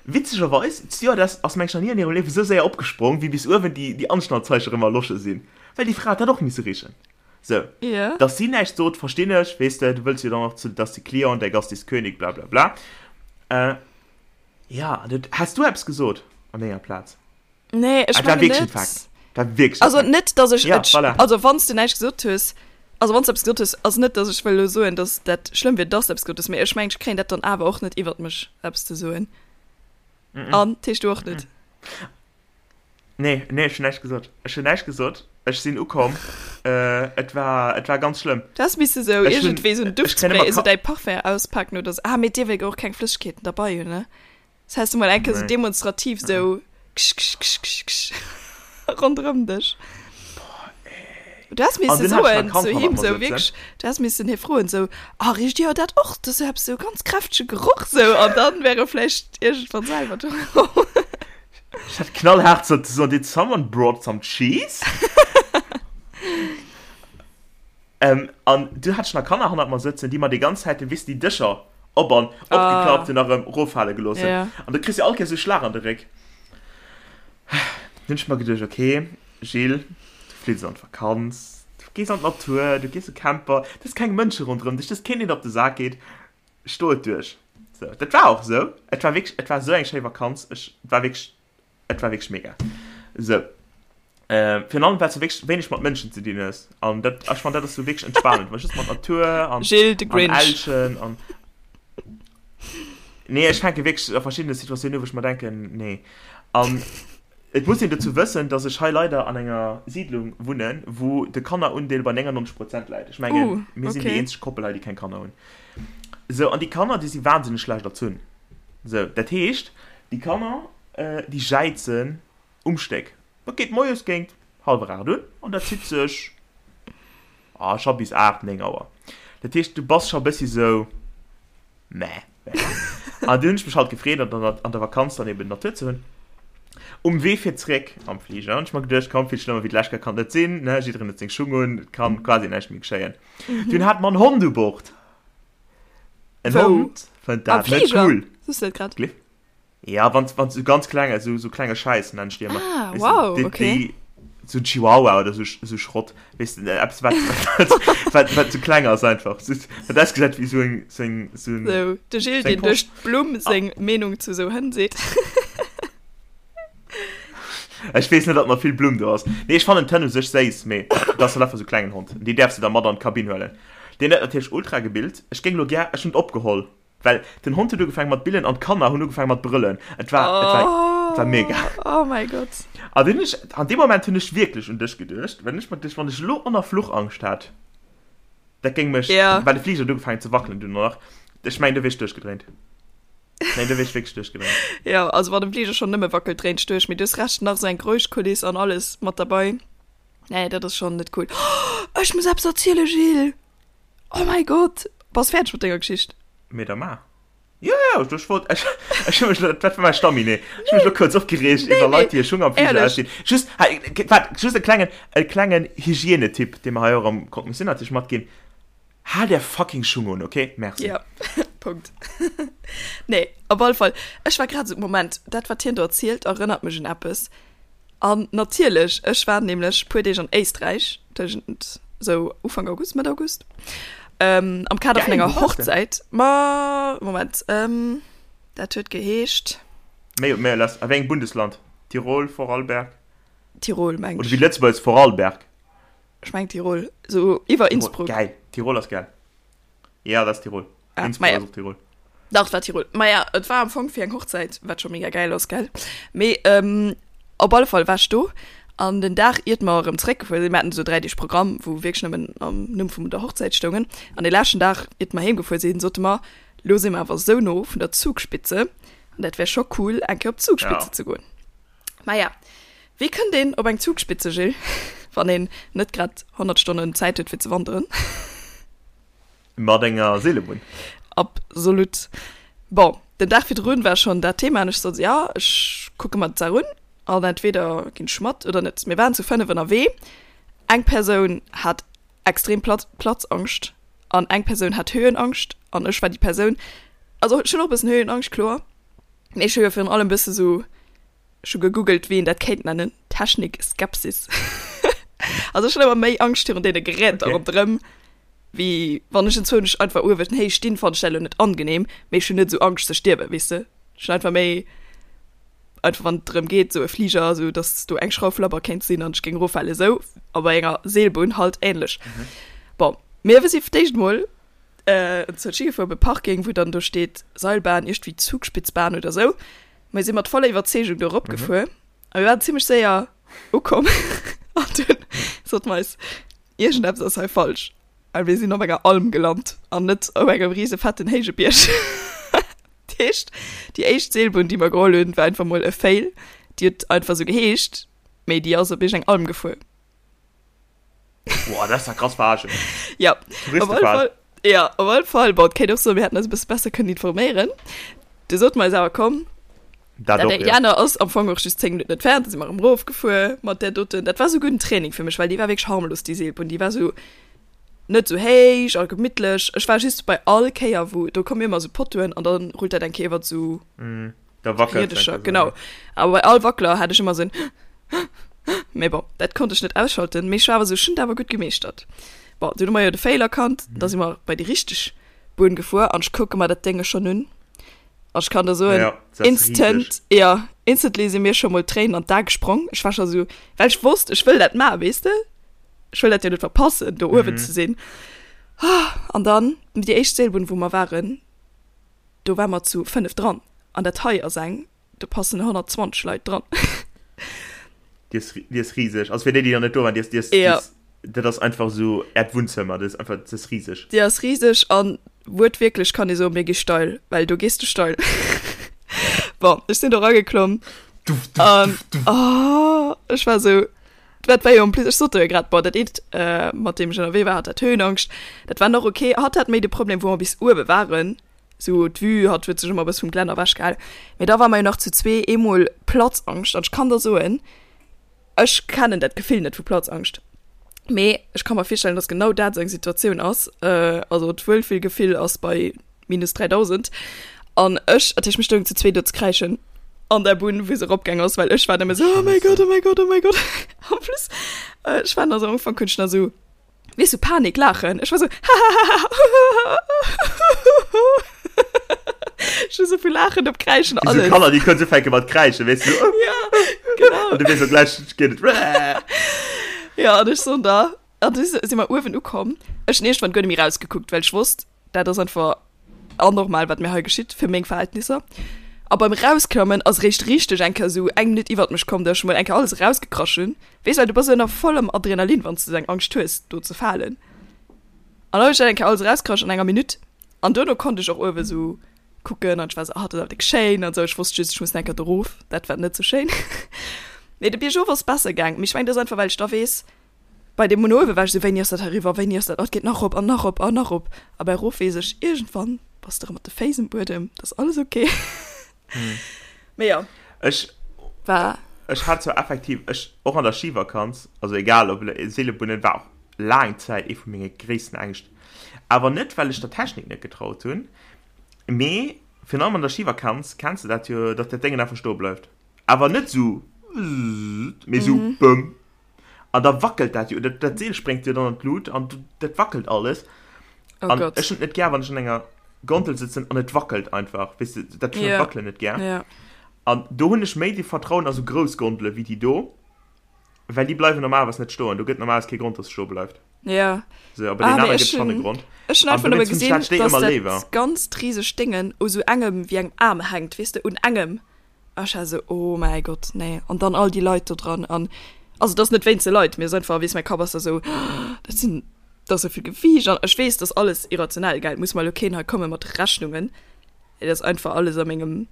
Witzegerweis, d'Stewardess ass mengen ech nach ni an hirem Liewe sou séier opgesprong, wéi bis uewen déi, déi Anschnallzeiche rëm erlosche sinn, well déi Fra huet dat och misse richen. Sou, Ja. dass si näischt sot, verstinn ech, weess de, du wëlls jo dann och zu, dass de Client, der Gast ist König, bla bla bla. Äh. Ja, dat, häss du eppes gesot an denger Plaz? Nee, ech Ah, dat war mengen wierklech net. en Fakt. Dat war wierklech en Also Fakt. net, dass ech Ja, et, voilà. also wann s du näischt gesot hues, also wann s du eppes gesot hues, ass net, dass ech wëll elo soen, dass dat schlëmm wier, dass du eppes gesot hues, mee ech mengen, ech kréien dat dann awer och net iwwert mech, eppes ze soen. An, d'heescht du och net? Nee, nee, ech hunn näischt gesot. Ech hunn näischt gesot. Ech sinn ukomm. Äh, et war, et war ganz schlëmm. Du häss misse sou Ech hunn, iergendwéi sou en ech kréien Duftspray, ëmmer esou Ka däi Parfum auspaken oder sou. Ah, mee dir wëllt jo och keng Flëssegkeeten derbei hunn, ne? Das häss du mol eng Kéier sou Nee. demonstrativ sou ksch, ksch, ksch, ksch, ksch ronderëm dech. Du häss An misse dunn hat ech soen nach Kand zu hannert him mer sou sëtzen. wierklech, du häss missen hie froen sou, Ah, richt Dir dat och? Dat ass sou eppes sou ganz kräftege Geroch sou. An dann wär e vläicht iergendwann selwer dru komm. Ech hätt knallhaart sollte soen, Did someone brought some cheese? ähm, an du hat ech nach Kanner hannert mer sëtzen, déi mer déi ganz Zäit, weess de, déi Dëscher op an opgeklappt hunn a rëm eroffale gelooss hunn. Ja. An du kriss jo all Kéiers esou Schlag an de Réck. Dunn hunn ech mer geduecht, okay, Gilles, du flitt an d'Vakanz, du gees an d'Natur, du gees e Camper, du hues keng Mënsche ronderëm dech, du hues keen, deen der op de Sak geet. Sto et duerch. Sou, dat war och esou. Et war wierklech, et war esou eng schéi Vakanz. Ech, et war wierklech, et war wierklech mega. Sou, äh, virun allem, well s du wierklech wéineg mat Mënschen ze dinn hues. An dat, ech fannen, dat ass sou wierklech entspanend, well just mat Natur an, Gilles de an Grinch. Elchen an. Nee, ech fänke wierklech a verschiddene Situatiounen u, wou ech mer denken, nee. An Et muss een dozou wëssen, dass ech hei leider an enger Siidlung wunnen, wou de Kannerundeel bei 99 Prozent läit. Ech mengen, Uh, mir sinn déi okay. eenzeg Koppel hei, déi keng Kanner hunn. Sou, an déi Kanner, déi si wahnsinneg schlecht erzunn. Sou, dat heescht, déi Kanner, déi jäizen um Stéck. Dat geet moies géint hallwer 8 un an dat zitt sech, ah, scho bis 8, 9 Auer. Dat heescht, du bass scho e bëssi sou, Mäh. An du hunn ech mech halt gefreet, an der, an der Vakanz dann eben d'Natur ze hunn. Um Wee fir zréck am Fliger hunn ech mer geduecht, komm, vill schlëmmer wéi d'lescht Kéier kann et net sinn, ne, jiddereen huet seng Schung un, et kann quasi näischt méi geschéien. Dunn hat mer en Hond u Bord. En Wou? Hond fënnt Am dat net Fliger? cool. Soos du dat grad? Gleef. Ja, wann wann so ganz klenge so, so klenge Scheiß nennen ich die immer. Ah, Weißt wow, du, die, okay. Die, so ein Chihuahua oder so, so Schrott. Weißt du, etwas, was, was, was, was so kleng ass einfach. So, wat ausgesät wie so ein, so ein, so ein So, de Gilles, Seng deen duerch Post. d'Blumm seng Meenung zu sou Hënn seet. Ech weess net, ob nach vill Blumm do ass. Nee, ech fannen d'Hënn u sech séiss, mee dat ass halt einfach sou klengen Hond. Déi däerfs de da mat an d'Kabinn huelen. Deen huet natierlech ultra gebillt. Ech géing lo gär, ech hunn et opgeholl. Well den Hond huet ugefaangen mat billen an d'Kanner hunn ugefaangen mat brëllen. Et war, et war, et war mega. Oh mäi Gott. An dunn ech, an deem Moment hunn ech wierklech un dech geduecht, well ech mer geduecht, wann ech elo och nach Fluchangscht hätt, dat géing mech, Ja. well de Fliger huet ugefaangen ze wackelen dunn och nach, ech mengen, do wier ech duerchgedréint. Nee, do wier ech wierklech duerchgedréint. Jo, also wann de Fliger schonn nëmme wackelt, dréint ech duerch. Mee du hues Recht, nach esou eng Geräuschkuliss an alles mat derbei. Nee, dat ass schonn net cool. Oh, ech muss eppes erzielen, Gilles! Oh mäi Gott! Bass fäerdeg mat denger Geschicht? Mee da maach. Jo, jo, ech wollt, ech, ech hu mech lo, dat war mäi Stamminet. Ech hu mech lo kuerz opgereegt iwwer Leit, déi hir Schung am Fliger Ehrlech. ausdinn. Just, hei, waart, just e klengen, e klengen Hygienetipp, dee mer hei och am Croque-Monsieur natierlech matginn, Haalt är fucking Schung un, okay? Merci. Ja, Punkt. Nee, op alle Fall, ech war grad esou, Moment, dat wat hien do erzielt, erënnert mech un eppes. An natierlech, ech war nämlech puer Deeg an Éisträich, tëschent sou Ufank August, Mëtt August, ähm, am Kader vun Geil, enger wou waars de? Hochzäit. Ma, Moment, ähm, dat huet geheescht. Méi, méi lass, a wéi engem Bundesland? Tirol, Vorarlberg? Tirol, meng Oder ech. wéi Lëtzebuerg, Vorarlberg? Ech meng Tirol, sou iwwer Tirol, Innsbruck. geil, Tirol ass geil. Ja, dat ass Tirol. Ah, Innsbruck maja. ass och Tirol. Dach, et war Tirol. Maja, et war am Fong fir eng Hochzäit, wat scho mega gäil ass, gell? Mee ähm, op alle Fall war ech do. An den Dag iert mer erëm zeréckgefuer sinn, mir haten esou 3 Deeg Programm, wou wierklech nëmmen am Numm vum der Hochzäit stoungen, an dee leschten Dag iert mer heemgefuer sinn, sote mer, lo si mer awer esou no vun der Zugspitze, an dat wär scho cool eng Kéier op d'Zugspitze ze goen. Maja, wéi kënnt een op eng Zugspitze, Gilles, wann een net grad 100 Stonnen Zäit huet fir ze wanderen? Mat enger Seelebunn. Absolut. Bon, den Dag virdrun war schonn dat Thema an ech sot, ja, ech kucke mer d'Saach un an entweder ginn ech mat oder net. Mir waren zu 5 ënnerwee. Eng Persoun hat extrem Platz, Platzangscht an eng Persoun hat Höhenangscht an ech war déi Persoun, also ech hunn och e bëssen Höhenangscht, kloer, mee ech hu jo virun allem e bësse sou Ech hu gegoogelt, wéi een dat kéint nennen, Technik-Skepsis. Also ech hunn ëmmer méi Angscht virun deene Geräter okay. ronderëm, wéi wann ech enzwousch einfach uewen héich stinn, fannen ech dat elo net angenehm, mee ech hunn net esou Angscht ze stierwen, weess de. Ech hunn einfach méi, einfach wann et drëm geet, esou e Fliger, esou datt do eng Schrauf labber kéint sinn an ech géing eroffalen, esou. A bei enger Seelbunn halt ähnlech. Mhm. Bon, mir si fir d'éischt mol äh, enzwousch higefuer op e Parking, wou dann do steet Seilbahn, iergendwéi Zugspitzbahn oder esou. Mir si mat voller Iwwerzeegung do eropgefuer mhm. a mir waren zimmlech séier ukomm. An dunn sot mer eis, iergendeppes ass hei falsch. A mir sinn op enger Alm gelant an net op engem riese fetten héije Bierg. Dat heescht, déi éischt Seelbunn, déi mer geholl hunn, war einfach mol e Fail. Déi huet einfach sou geheescht, mee déi ass op iergend eng Alm gefuer. Boah, dat ass ja krass verarschen. Ja, op alle Fall, ja, op alle Fall, bon, et kéint och soen, mir hätten eis e bësse besser kënnen informéieren. Du sot mer eis awer, komm, Dat dat och, déi ja. aner ass am Fong och just 10 Minutten entfernt, da si mer erëm erofgefuer mat där doten. Dat war souguer en Training fir mech, well déi war wierklech harmlos, déi Seelbunn. Déi war sou net sou héich a gemittlech. Ech war just bei all Kéier, wou, do komme jo ëmmer sou Pottoen an da rullt dat eng Kéier iwwert sou Da wackelt Riedescher, genau. Awer bei all Wackler hat ech ëmmer sou en Mee bon, dat konnt ech net ausschalten. Mee ech war awer sou, ech hunn et awer gutt gemeeschtert. Bon, dunn hu mer jo de Fail erkannt, da si mer bei déi richteg Bunn gefuer an ech kucke mer dat Dénge schonn un an ech kann der soen, Ja, dat ass instant, riseg. ja, instantly si mir scho mol d'Tréinen an d'Ae gesprong. Ech war scho sou, well ech wosst, ech wëll dat maachen, weess de? Ech wëll dat jo net verpassen, do uewen ze sinn. An dann, déi éischt Seelbunn, wou mer waren, do ware mer zu 5 dran an dat hei ass eng, do passen 120 Leit dran. Déi ass, déi ass riseg. Also fir déi, déi nach net do waren, déi ass, déi ass, déi Ja. ass, dat ass einfach esou äert Wunnzëmmer. Dat ass einfach, dat ass riseg. Déi ass riseg an wuertwierklech kann ee soen, mir gi steil, well do gees de steil. Bon, ech sinn do rageklomm Duff, duff, an duff, duff. oh, ech war esou, dat war jo en plus, ech sot der jo grad, bon, dat eent, mat deem ech ënnerwee war, hat dat Höhenangscht, dat war nach ok. Hatt hat méi de Problem, wou mer bis uewe waren, Sou d'Vue, hatt huet sech ëmmer e bësse vum Glänner ewech gehal. Mee da war mer jo nach zu zwee eemol Platzangscht an ech kann der soen, ech kennen dat Gefill net vu Platzangscht, mee ech ka mer virstellen, dass genau dat esou eng Situatioun ass. Also d'Wuelfillgefill ass bei minus 3000 an ech, dat heescht mir stoungen zu zwee do ze kräischen an der Bunn, wou se eropgaang ass, well ech war nëmme sou, oh mäi Gott, oh mäi Gott, oh mäi Gott. En plus, ech war nach sou am Ufank hunn ech nach sou Weess du, Panik laachen. Ech war sou, hahahaha. Ech hu sou vu Laachen op Kräischen, Wéi sou alles. Kanner, déi kënnen ufänke mat kräischen, weess du. Ja, genau. An du weess och gläich, geet et. Ja, an ech soen da, an du si mer uewen ukomm. Ech hunn iergendwann guer net méi rausgekuckt, well ech wosst, dat ass einfach anormal, wat mir hei geschitt, fir meng Verhältnisser. A beim Rausklammen ass eréischt richteg eng Kéier esou eng Minutt iwwert mech komm, datt ech mol eng Kéier alles erausgekrasch hunn. Weess, well du bass ënner vollem Adrenalin, wann s de esou eng Angscht hues, do ze falen. An da hunn ech dat eng Kéier alles erausgekrasch an enger Minutt. An duerno konnt ech och uewe sou kucken an ech war esou, ah, dat ass awer déck schéin an esou. Ech wosst just, ech muss nach eng Kéier do erof, dat war net sou schéin. Mee de Biergof ass besser gaang. Mee ech mengen, dat ass einfach, well ech da weess, Bei deem un uewe war ech esou, wéini ass dat eriwwer, wéini ass dat, oh et geet nach erop an nach erop an nach erop. A bei erof weess ech, iergendwann bass de erëm mat de Féiss um Buedem, dat ass alles ok. Mee jo. Ech war. Ech hat zwar effektiv, ech och an der Schivakanz, also egal ob Seelebunnen, war och laang Zäit ee vu menge gréissten Ängscht. Awer net well ech der Technik net getraut hunn, mee virun allem an der Schivakanz kenns de dat jo, datt dat Déngen einfach stoe bleift. Awer net esou wzzzt, mee esou bëmm. An da wackelt dat jo, dat, dat Seel spréngt jo dann an d'Lut an dat wackelt alles. Oh an Gott. ech hunn et net gär, wann ech an enger Gondel sëtzen an et wackelt einfach. Weess de, dat ech hunn Ja. d'Wackelen net gär. Ja. An do hunn ech méi de Vertrauen a sou grouss Gondele wéi déi do, well déi bleiwen normalerweis net stoen. Do gëtt normalerweis kee Grond, dass se stoe bleift. Ja. So, a bei Ah, deenen mee anere ech gëtt schonn e hunn Grond. ech hunn An einfach nëmme dowéinst hunn ech gesinn, dat Stéck dass ëmmer dat léiwer. ganzt risegt Déngen u sou engem wéi engem Aarm hänkt, weess de, un engem. A ech war sou, oh mäi Gott, nee. An dann all déi Leit do dran an. Also et ass net wéinst de Leit, mee et ass einfach, weess, mäi Kapp ass da sou, dat sinn, dat ass esou vill Gewiicht an ech weess, dat ass alles irrationell, gell, et muss mer elo keen hei komme mat Rechnungen, et ass einfach alles a mengem,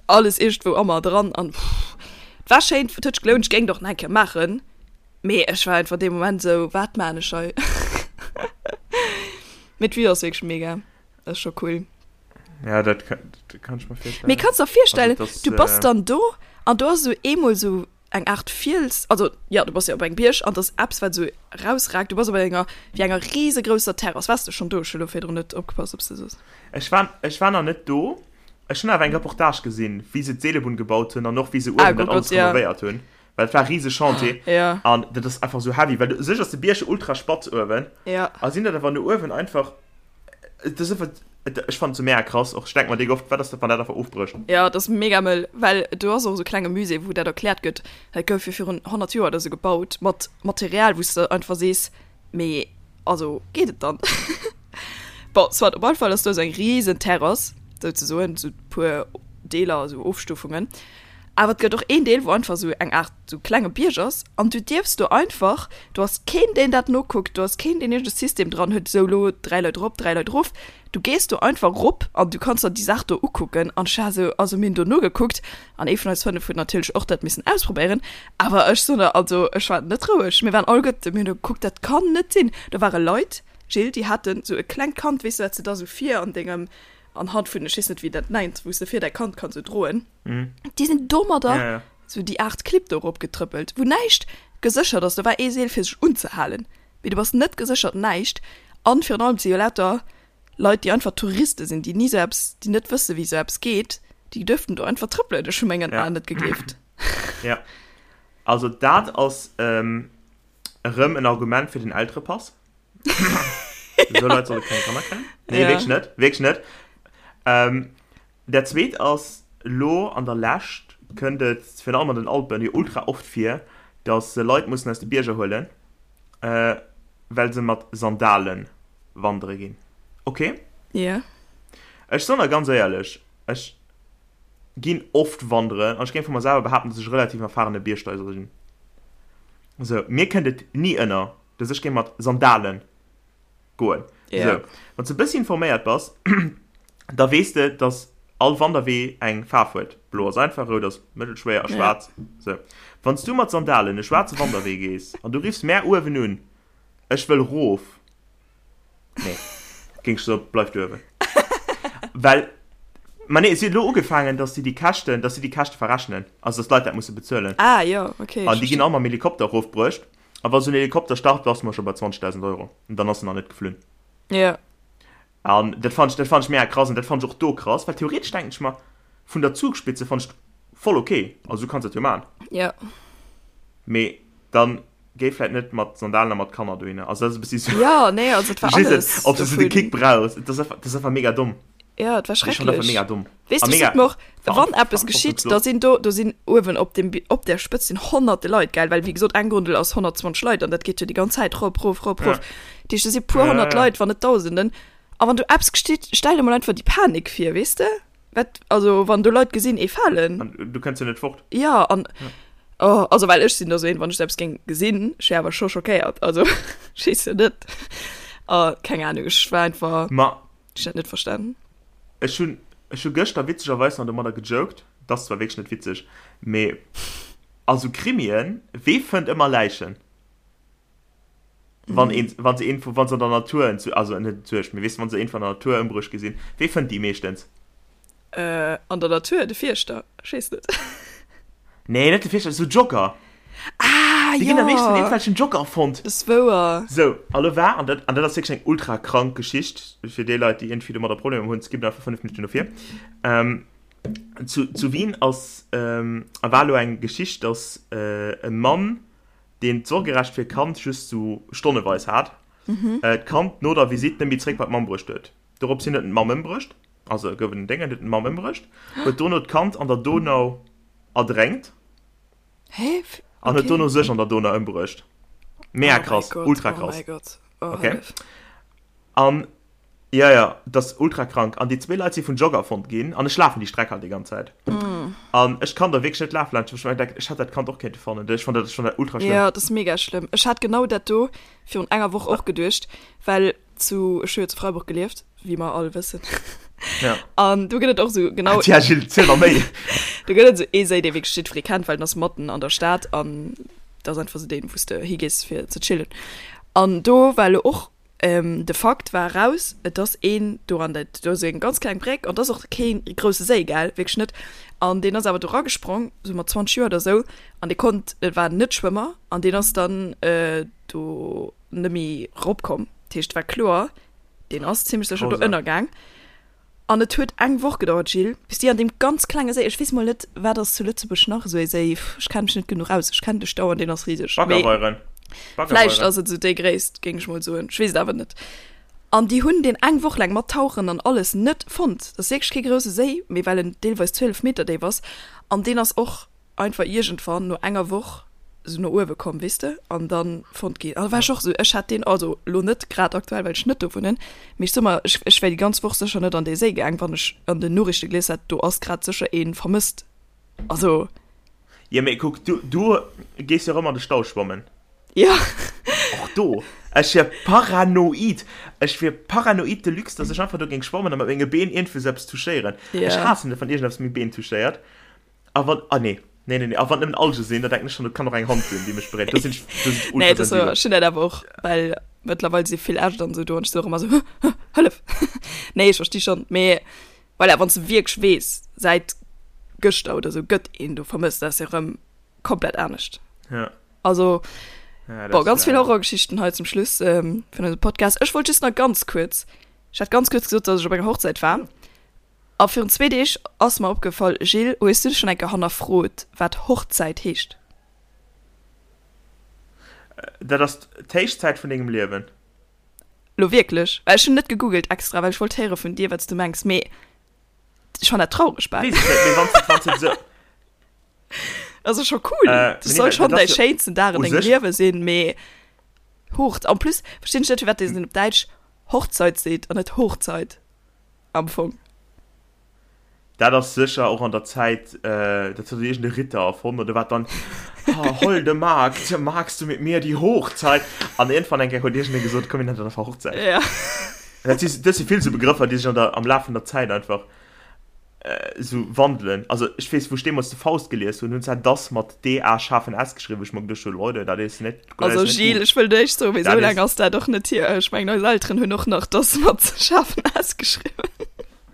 alles iergendwou a mer dran an et war schéin, et huet sech gelount, ech géing et och nach eng Kéier maachen, mee ech war einfach dee Moment sou, wat maan ech hei? Mee d'Vue ass wierklech mega, ass scho cool. Ja, dat kann, dat kann ech mer virstellen. Mee kanns der virstellen, Also, das, du bass äh, dann do an do ass esou eemol esou eng Aart Fiels, also jo, du bass jo op engem Bierg an et ass eppes wat esou erausragt, du bass op enger wéi enger risegrousser Terrass. Waars de schonn do? Ech hu lo virdrun net opgepasst, ob s de soos. Ech war, ech war nach net do. Ech hunn awer eng Reportage gesinn, wéi se d'Seelebunn gebaut hunn an och wéi se Ah, uewen dat guck alles Gott, ja. renovéiert hunn. Well et war e rise Chantier. Ja. An dat ass einfach esou heavy, well u sech ass de Bierg jo ultra spatz uewen. Ja. A sinn dat awer no uewen einfach, et ass einfach, et, ech fannen et sou mega krass. Och ech denke mer déck oft, wat ass dat, wann dat einfach ofbrécht? Ja, et ass mega mëll, well do ass och esou e klenge Musée, wou dat erkläert gëtt. Dat gouf jo virun 100 Joer oder sou gebaut, mat Material, wou s de einfach sees, mee also geet et dann? Bon, soit, op alle Fall ass do esou eng risen Terrass, souzesoen, esou puer Deeler, esou Ofstufungen. Awer et gëtt och een Deel, wou einfach esou eng Aart esou klenge Bierg ass an du dierfs do einfach, do ass keen, deen dat nokuckt, do ass keen, deen iergend e System dran huet, esou elo 3 Leit erop, 3 Leit erof. Du gees do einfach erop an du kanns der déi Saach do ukucken. An ech war esou, also mir hunn do nogekuckt an ee vun eis 5 huet natierlech och dat missen ausprobéieren. Awer ech soen der, also ech war net roueg, mir waren alleguerte, mir hunn do gekuckt, dat kann net sinn. Do ware Leit, Jill, déi haten esou e klengt Kand, weess de, wat s de da esou vir an dengem, anhand vun, ech weess net wéi dat nennt, wou s de vir däi Kand kanns esou droen. Déi sinn domadder Ja, ja. sou déi Aart Clibb do erop getrëppelt, wou näischt geséchert ass. Do war ee Seel fir sech unzehalen, mee du bass net geséchert, näischt. An virun allem, et si jo lauter Leit, déi einfach Touriste sinn, déi ni sou eppes, déi net wësse wéi sou eppes geet, déi duerften do einfach trëppelen. Ech hu mengen Ja. Aen net gegleeft. Ja. Also dat ass ähm, erëm en Argument fir den Elterepass. Esou Leit solle keng Kanner kréien. Nee, Ja. wierklech net, wierklech net. Ähm, Dat zweet ass, elo an der Lescht kënnt et, virun allem an den Alpen, jo ultra oft vir, datt se Leit mussen aus de Bierger huelen, well se mat Sandale wandere ginn. Ok? Jo. Ech soen der ganz éierlech, ech ginn oft wanderen an ech géing vu mer selwer behaapten, datt ech e relativ erfahrene Biergsteiger sinn. Sou, mir kënnt et ni ënner, datt ech géing mat Sandalen goen. Ja. Sou, wann s de e bëssi informéiert bass, da weess de, dass all Wanderwee eng Faarf huet. Blo ass einfach, rout ass mëttelschwéier a Ja. schwaarz. Sou, wann s du mat Sandalen e schwaarze Wanderwee gees an du riffs mär uewen un, Ech wëll rof. Nee, géing ech soen, bleif du uewen. Well, ma nee, si huet elo ugefaangen, dass si déi Käschten, dass si déi Käschte verrechnen, also dass d'Leit dat musse bezuelen. Ah, jo, okay, An ech déi ginn verstinn. all mam Helikopter erofbruecht. A wa sou en Helikopter start, bass mer scho bei 20.000 Euro. An dann ass en nach net geflunn. Ja. An dat fand ech, dat fand ech mega krass an dat fand ech och do krass, well theoretesch denken ech mer, vun der Zugspitze fand ech voll ok, also du kanns dat jo man. Ja. Mee dann géi vläit net mat Sandalen a mat Kanner dohinner. Also dat ass e bëssi sou. Ja, nee, also et war Verstees de? alles Ob s du sou de dovun. Kick brauchs. Dat ass einfach, dat ass einfach mega domm. Ja, et war Ech fand einfach schrecklech. mega domm. Weess A du, ech mega sot mer och, wann eppes geschitt, da verantwortungslos. sinn do, do sinn uewen op dem, op där Spëtz sinn honnerte Leit, gell, well wéi gesot eng Gondel ass 120 Leit an dat geet jo déi ganz Zäit rop, rof, rop, Ja. rof. Dat heescht, do si puer Ja, honnert ja. Leit, wann net Dausenden. A wann do eppes geschitt, stell der mol einfach déi Panik vir, weess de? Wat, also wann do Leit gesinn, ee falen. An du kënns jo net fort. Ja, an, oh, also well ech sinn da sou een, wann ech sou eppes géing gesinn, ech wär awer scho schockéiert, also ech weess jo net. A keng Ahnung, ech war einfach, Ma ech hunn dat net verstanen. Ech hunn, ech hu gëschter witzegerweis nach domadder gejoked, et ass zwar wierklech net witzeg, mee a sou Krimien, wee fënnt ëmmer Läichen? Wann een, wann se een, wann se an der Natur, also net entsuergt, mee weess de, wann se een van der Natur ëmbruecht gesinn, wee fënnt déi meeschtens? Äh, an der Natur, de Fierschter, ech weess net. Nee, net de Fierschter, sou Jogger. Ah, Déi ginn am meeschten jo! iergendwelchen Jogger fonnt. Dat ass wouer. Sou, a lo war, an dat, an dat ass wierklech eng ultra krank Geschicht, fir déi Leit, déi iergendwéi domadder Problemer hunn, skippen einfach 5 Minutten no vir. Ähm, zu, zu Wien ass, ähm, a war lo eng Geschicht, dass äh, e Mann, deen d'Sorgerecht fir d'Kand just sou stonneweis hat, äh, d'Kand no der Visitt net méi zréck bei d'Mamm bruecht huet. Dorops hin huet en d'Mamm ëmbruecht, also gouf en Déngen, huet en d'Mamm ëmbruecht, huet dono d'Kand an der Donau erdränkt. Hä? An huet Okay. dono sech an der Donau ëmbruecht. Mega Oh mäi krass, Gott, ultra oh krass. mäi Gott. Oh, Okay. hëllef. An. Ja, ja, dat ass ultra krank. An déi zwee Leit si vun Jogger fonnt ginn. An ech lafen déi Streck halt déi ganz Zäit. Mm. An ech kann da wierklech net lafen laanscht. Ech denken, ech hätt dat Kand och kéinte fannen. Ech fand dat, ech fand dat ultra schlëmm. Ja, dat ass mega schlëmm. Ech hat genau dat do virun enger Woch och geduecht, well zu, ech hu jo zu Freiburg gelieft, wéi mer all wëssen. Ja. An do gëtt et och sou genau. Tja, Gilles, ziel mer méi. Do gëtt et sou ee Séi, dee wierklech jiddweree kennt, well den ass matten an der Stad an dat ass einfach sou deen, wou s de higees fir ze chillen. An do war elo och De Fakt war eraus, et ass een do an dat, do ass eng ganz kleng Bréck an et ass och kee grousse Séi, gell, wierklech net. An deen ass awer do eragesprong, sou mat 20 Joer oder sou, an dee konnt, et war en Net-Schwëmmer, an deen ass dann do net méi eropkomm. Dat heescht, et war kloer, deen ass zimmlech sécher do ënnergaang. An et huet eng Woch gedauert, Gilles, bis déi an deem ganz klenge Séi, ech weess mol net, wat ass zu Lëtzebuerg nach esou ee Séi, ech kenne mech net genuch aus, ech kennen de Stau an deen ass riseg, mee Baggerweieren. vläicht ass et esou déi Gréisst, géing ech mol soen, ech weess et awer net. An déi hunn deen eng Woch laang mat Tauchen an alles net fonnt. Dat ass wierklech kee grousse Séi, mee well en deelweis 12 Meter déif ass an deen ass och einfach iergendwann no enger Woch sou no uewe komm, weess de, an dann fonnt ginn. An da war ech och sou, ech hätt deen, also lo net grad aktuell, well ech net do wunnen, mee ech soe mer, ech, ech wär déi ganz Woch sécher net an dee Séi gaang, wann ech an den Noriichte gelies hätt, do ass grad sécher ee vermësst. Also. Jo, mee kuck, du, du gees jo erëm an de Stau schwammen. Jo. Och do, ech wier paranoid, ech wier paranoid de luxe, dass ech einfach do géing schwammen a mat menge Been iergendwou sou eppes touchéieren. Ech haassen et, wann iergendeppes meng Been touchéiert. A wann, ah nee, nee, nee, nee, a wann nëmmen Alge sinn, da denken ech schon, et kann och eng Hand sinn, déi mech beréiert. Do sinn ech, do sinn ech Nee, das, ultrasensibel. ech hunn dat awer och, well mëttlerweil si vill Äscht an esou do an ech si och ëmmer esou, Hëllef! Nee, ech versti schonn, mee voilà, wann s de wierklech weess, säit gëschter oder esou gëtt een do vermësst, dat ass jo erëm komplett anescht. Ja. Also, Ja, dat boah, ass ganz vill leider. Horrorgeschichten hei zum Schluss ähm, vun eisem Podcast. Ech wollt just nach ganz kuerz, ech hat ganz kuerz gesot, dass ech op enger Hochzäit war. A virun zwee Deeg ass mer opgefall, Gilles, hues du dech schonn eng Kéier hannerfrot, wat Hochzäit heescht? Dat ass d'Héichzäit vun dengem Liewen. Lo wierklech? Well ech hunn net gegoogelt extra, well ech wollt héiere vun dir, wat s du mengs, mee ech fann dat traureg bal. Weess ech net, mee wann s de, wann s de esou. Also scho cool, Äh, dat nee, soll dat schonn ass däi jo schéinsten Dag an u dengem sech. Liewe sinn, mee Hochz-, en plus verstinn ech net, firwat een op Däitsch Hochzeit seet an net Hochzeit. Am Fong. Dat ass sécher och an der Zäit, dat huet iergend e Ritter erfonnt oder wat dann, Ha, holde Magd, magst du mit mir die Hochzeit? An iergendwann eng Kéier huet iergendee gesot, komm mir nennen dat einfach Hochzäit. Ja. Dat si, dat si vill sou Begrëffer, déi sech an der, am Laf vun der Zäit einfach esou wandelen. Also ech weess, wou ech deemools de Faust gelies hunn, hunn zwar das mat D-A schaarfen S geschriwwen, wou ech mer geduecht hunn, Leute, dat is net, dat Also is net Gilles, gut. ech wëll näischt soen, mee Dat esou laang is. ass dat och net hier. Ech mengen, eis Elteren hunn och nach das mat schaarfen S geschriwwen.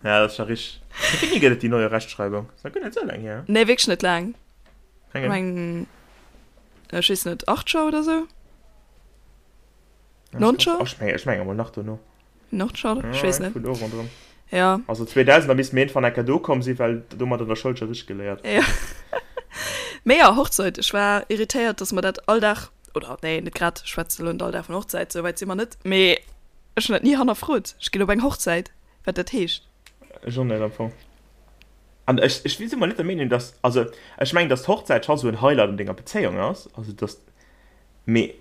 Ja, dat ass scho richteg. Wéi wéini gëtt et déi neue Rechtschreibung? Ass nach guer net esou laang hier. Nee, wierklech net laang. Eng. Ech mengen, ech weess net, 8 Joer oder sou? 9 Joer? Ech mengen, ech mengen emol nach dono. Nordschall? Ja, Ech weess net. vun do ronderëm. Ja. Also 2000, da misst mir irgendwann enker do komm sinn, well domat an der Schoul scho richteg geléiert. Ja. Mee ja, Hochzeit. Ech war irritéiert, dass mer dat all Dag, oder nee, net grad, ech schwätze lo net all Dag vun Hochzeit, sou wäit si mer net, mee ech hunn dat ni hannerfrot. Ech ginn op eng Hochzäit, wat dat heescht. Ech och net am Fong. An ech, ech si mol net der Meenung, dass, also ech mengen, dass d'Hochzäit scho sou en Highlight an denger Bezéiung ass, also dass Mee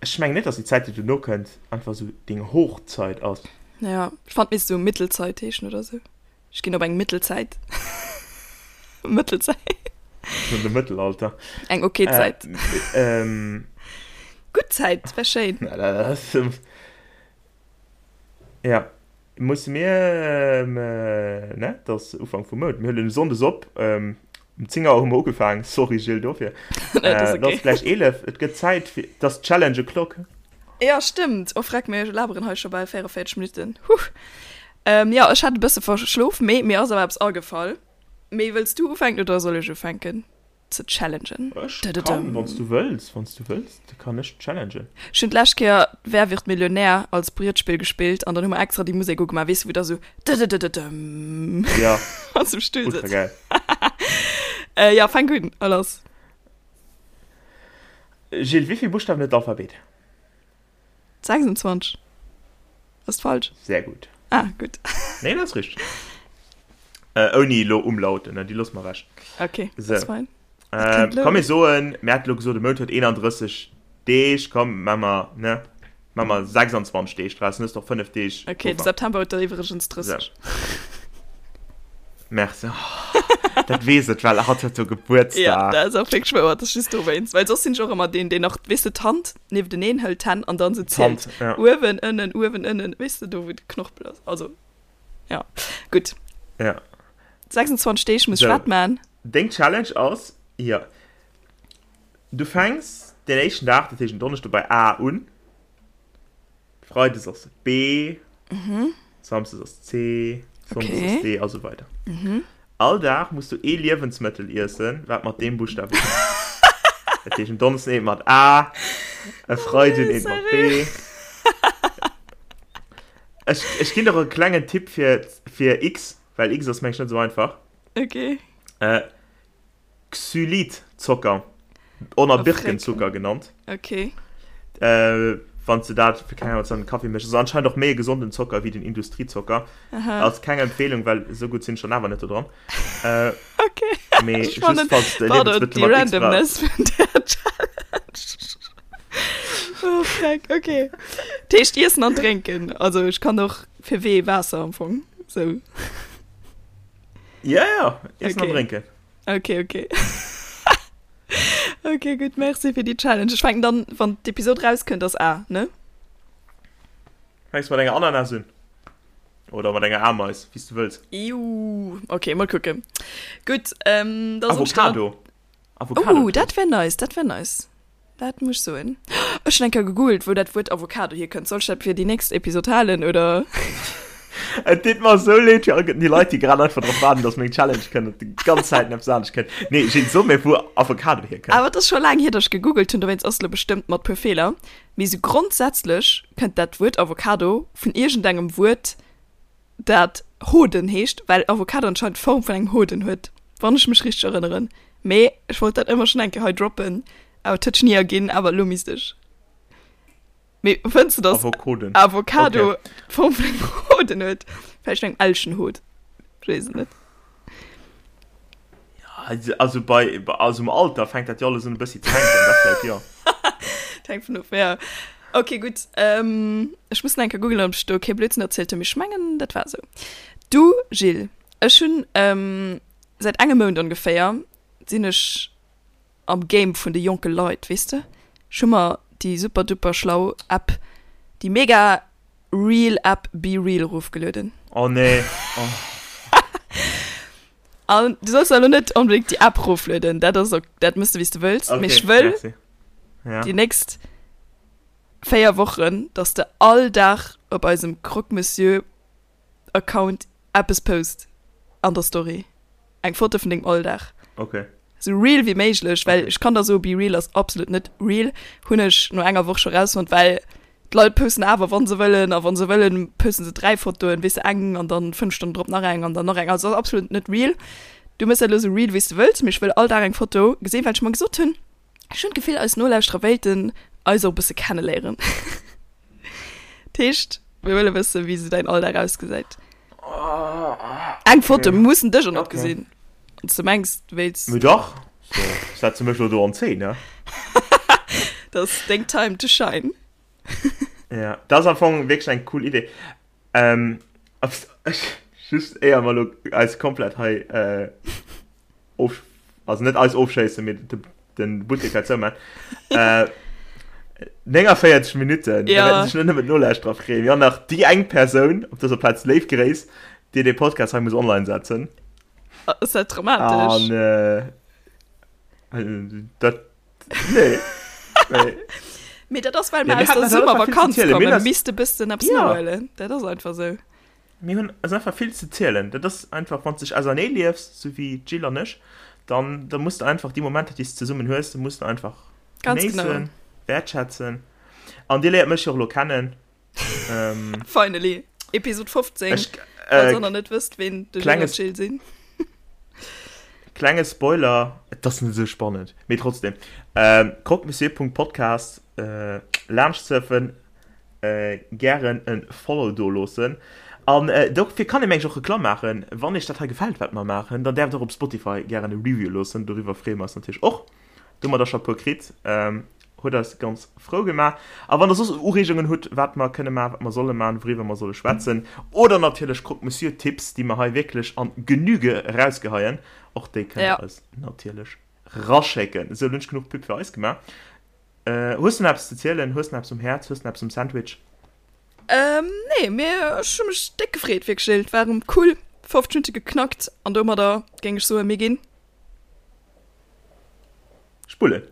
ech mengen net, dass déi Zäit, déi dono kënnt, einfach esou deng Hochzeit ass. Ja, ech fand misst esou Mittelzeit heeschen oder esou. Ech ginn op eng Mittelzäit. Mëttelzäit. An de Mëttelalter. Eng ok Zäit. Äh, ähm. Gutt Zäit, wär schéin. Na, dat ass. Ja, musse mir, ne, et ass Ufank vum Mount, mir huelen sonndes op, um 10 Auer hu mer ugefaangen, sorry Gilles dofir. Nee, dat ass Et ass okay. gläich 11, et gëtt Zäit fir, et ass Challenge o'clock. Ja, stëmmt. Oh freck, mir laberen hei scho bal 44 Minutten. Huh. Ähm, ja, ech hat e bësse verschlof, mee mir ass awer eppes agefall. Mee wëlls du ufänken oder soll ech ufänken? ze challengen. Ech kann, wann s du wëlls, wann s du wëlls, da kann ech challengen. Ech hunn d'lescht Kéier Wer wird Millionär als Brietspill gespillt an dann hu mer extra déi Musek ugemaach, weess du, wou da sou dëdëdëdëdëm Ja, wann s du um Stull ultra sëtz. geil. Äh, ja, fänk un, a lass. Gilles, wéi vill Buschtawen huet d'Alphabet? 26. Ass falsch? Sehr gut. Ah, gutt. Nee, dat ass richteg. Äh, ouni elo Umlauten, ne? Déi loosse mer ewech. Okay, So. das fein. Äh, kënnt komm, mir soen, mir hate lo gesot, de Mount huet 31 Deeg, komm, maache mer, ne? Maache mer 26 Deeg draus, dann hues de och 5 Deeg Ok, de Puffer. September huet der iwwregens 30. Sou. Merci. Oh, dat weess et, well hatt huet jo Ja, Gebuertsdag. dat ass och wierklech wouer, dat ass just dowéinst. Well soss sinn ech och ëmmer deen, deen nach, weess de, d'Hand niefteneen hëlt, d'Hänn, an dann sou zielt. D'Hand, ja. Uewen, ënnen, uewen, ënnen, weess de, do wou de Knorpel ass. Also, ja, gutt. Ja. 26 Deeg muss ech Sou. wat man? Deng Challenge ass, jo, du fänks den éischten Dag, dat heescht en Donneschde bei A un, Freides ass B, Samsdes ass C, Sonndes Okay. ass D a sou weider. All Dag muss du ee Liewensmëttel iessen, wat mat deem Buschtaf ufänkt. Dat heescht en Donneschden eent mat A, e Freiden eent mat B. Ech, ech ginn der e klengen Tipp fir, fir X, well X ass meng ech net sou einfach. Okay. Äh, Xylitzocker, oder Oh, Birkenzucker genannt. Okay. Äh, wann du dat fir keng Ahnung, an den Kaffee méchs. Ass anscheinend och méi e gesonden Zocker wéi den Industriezocker. Aha. Ass keng Empfehlung, well esou gutt sinn ech dann awer net do dran. Äh, Okay. mee Ech just fannen, falls de pardon, Liewensmëttel déi mat X brauchs. Randomness vun der Challenge. Oh, freck, okay. Dat heescht Iessen an Drénken. Also ech kann och fir W Waasser am Fong. Sou. Ja, ja, Iessen an Okay. Drénken. Okay, okay. Okay, gutt, merci fir déi Challenge. Ech fänken dann, wann d'Episod rauskënnt, ass A, ne? Fänks mat enger Ananas un. Oder mat enger Ameis, wéi s du wëlls. Iuh, okay, mol kucken. Gutt, ähm, da soll ech dann. Avocado. Avocado. Oh, dat wär nice, dat wär nice. Dat muss ech soen. Ech hunn eng Kéier gegoogelt, wou dat Wuert Avocado hierkënnt. Soll ech dat fir déi nächst Episod halen, oder? Et deet mer esou leed fir all déi Leit, déi grad einfach drop waarden, dass meng Challenge kënnt an déi ganz Zäit eppes anescht kënnt. Nee, Jill, so mir, wou Avocado hierkënnt. Awer et ass scho laang hier, dass ech gegoogelt hunn, dowéinst ass et elo bestëmmt mat puer Feeler. Mee esou grondsätzlech kënnt dat Wuert Avocado vun iergendengem Wuert, dat Hoden heescht, well Avocado anscheinend d'Form vun engem Hoden huet, wann ech mech richteg erënneren. Mee ech wollt dat ëmmer schonn eng Kéier hei droppen, awer et huet sech ni erginn, awer elo misst ech. Mee fënns de, dass Avocoden. Avocado Okay. d'Form vun engem Hoden huet? Vläicht vun engem Elchenhod, ech weess et net. Ja, also bei, also im Alter fänkt dat jo alles un e bëssi ze hänken, dat vläicht jo. Dat hänkt vun of, ja. Ok, gutt. Ähm, ech muss nach eng Kéier googelen, ob ech do kee Blödsinn erzielt hunn, mee ech mengen, dat war esou. Du, Gilles, ech hunn ähm, säit engem Mount ongeféier sinn ech am Game vun de jonke Leit, weess de? Ech hu mer déi super duper schlau App, déi mega real App BeReal erofgelueden. Oh nee, oh. An du solls elo net onbedéngt déi App roflueden, dat ass ok, dat mëss de wéi s de wëlls, mee ech wëll merci. Ja. déi nächst 4 Wochen, dass de all Dag op eisem Croque Monsieur Account eppes post an der Story, eng Foto vun dengem Alldag. Okay. Sou real wéi méiglech, well Okay. ech kann der soe BeReal ass absolut net real, hunn ech no enger Woch scho rausfonnt, well D'Leit posten awer wann se wëllen a wann se wëllen posten se 3 Fotoen, weess de, eng an dann 5 Stonnen drop nach eng an dann nach eng. Also ass absolut net real. Du mëss dat elo sou real wéi s de wëlls, mee ech wëll all Dag eng Foto gesinn, well ech mer gesot hunn, ech hunn d'Gefill eis Nolauschterer wéilten eis och e bësse kenneléieren. Dat heescht, mir wëlle wëssen, wéi sou däin Alldag ausgesäit. Eng Foto, mir mussen dech och net gesinn, wann s de mengs du wéilts. Mee dach, so setze mech elo do an Zeen, ne? Dat ass deng Time to shine. Ja, dat ass am Fong wierklech eng cool Idee. Ähm, ech, just éier mer elo eis komplett hei äh, of, also net eis ofschéissen, mee de, den Buttek hei zouman. Äh, 49 Minutten, da Ja. wäerten sech net nëmmen d'Nolauschterer freeën, mee och nach déi eng Persoun, op dëser Plaz léif Gréiss, déi dee Podcast hei muss online setzen. Ass dat dramatesch? An äh, äh, dat Nee. Nee. Mee dat ass, well Ja, mer mir aus haten der halt einfach vill ze Summervakanz zielen. Mir kommen, hunn eis- misst e bëssen eppes Ja. nohuelen. Dat ass einfach sou. Mir hunn eis einfach vill ze zielen. Dat ass einfach, wann s dech ausernee liefs, sou wéi d'Jill an ech, dann, dann muss de einfach déi Momenter, déi s de zesummen hues, muss de einfach Ganz genau. genéissen, wäertschätzen. An dir léiert mech jo och elo kennen. Ähm, Finally. Episod 15. ech, Falls äh, der nach net wësst, ween de Gilles an klenges- d'Jill sinn. Klenge Spoiler, et ass net esou spannend, mee trotzdem. Ähm, croquemessieur.podcast äh, laanscht surfen, äh, gären en Follow do loossen. An äh, dofir kann ee mengen ech och Reklamm maachen. Wann iech dat hei gefält, wat mer maachen, dann däerft der och op Spotify gären e Review loossen. Doriwwer freeë mer eis natierlech och. Do hu mer der scho e puer kritt. Ähm. Huet eis ganz frou gemaach. A wann der soss Ureegungen hutt, wat mer kënne maachen, wat mer solle maachen, wouriwwer mer solle schwätzen, oder natierlech Croque Monsieur Tipps, déi mer hei wierklech an Genüge erausgeheien, och déi kënnt der eis natierlech raschécken. Esou, elo hunn ech genuch Pub fir eis gemaach. Hues du nach eppes ze zielen? Hues du nach eppes um Häerz? Hues du nach eppes um Sandwich? Nee, mee ech hu mech déck gefreet, wierklech. Et war erëm cool, 50 Minutte geknackt an domadder géing ech soen, mir ginn. Spullen.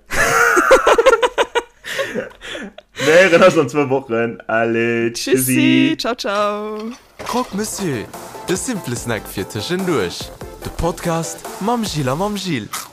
Mir héieren eis an zwou Wochen. Allez, tschüssi. Tschüssi, ciao, ciao. Croque Monsieur, de simple Snack fir tëschenduerch. De Podcast mam Gilles a mam Gilles.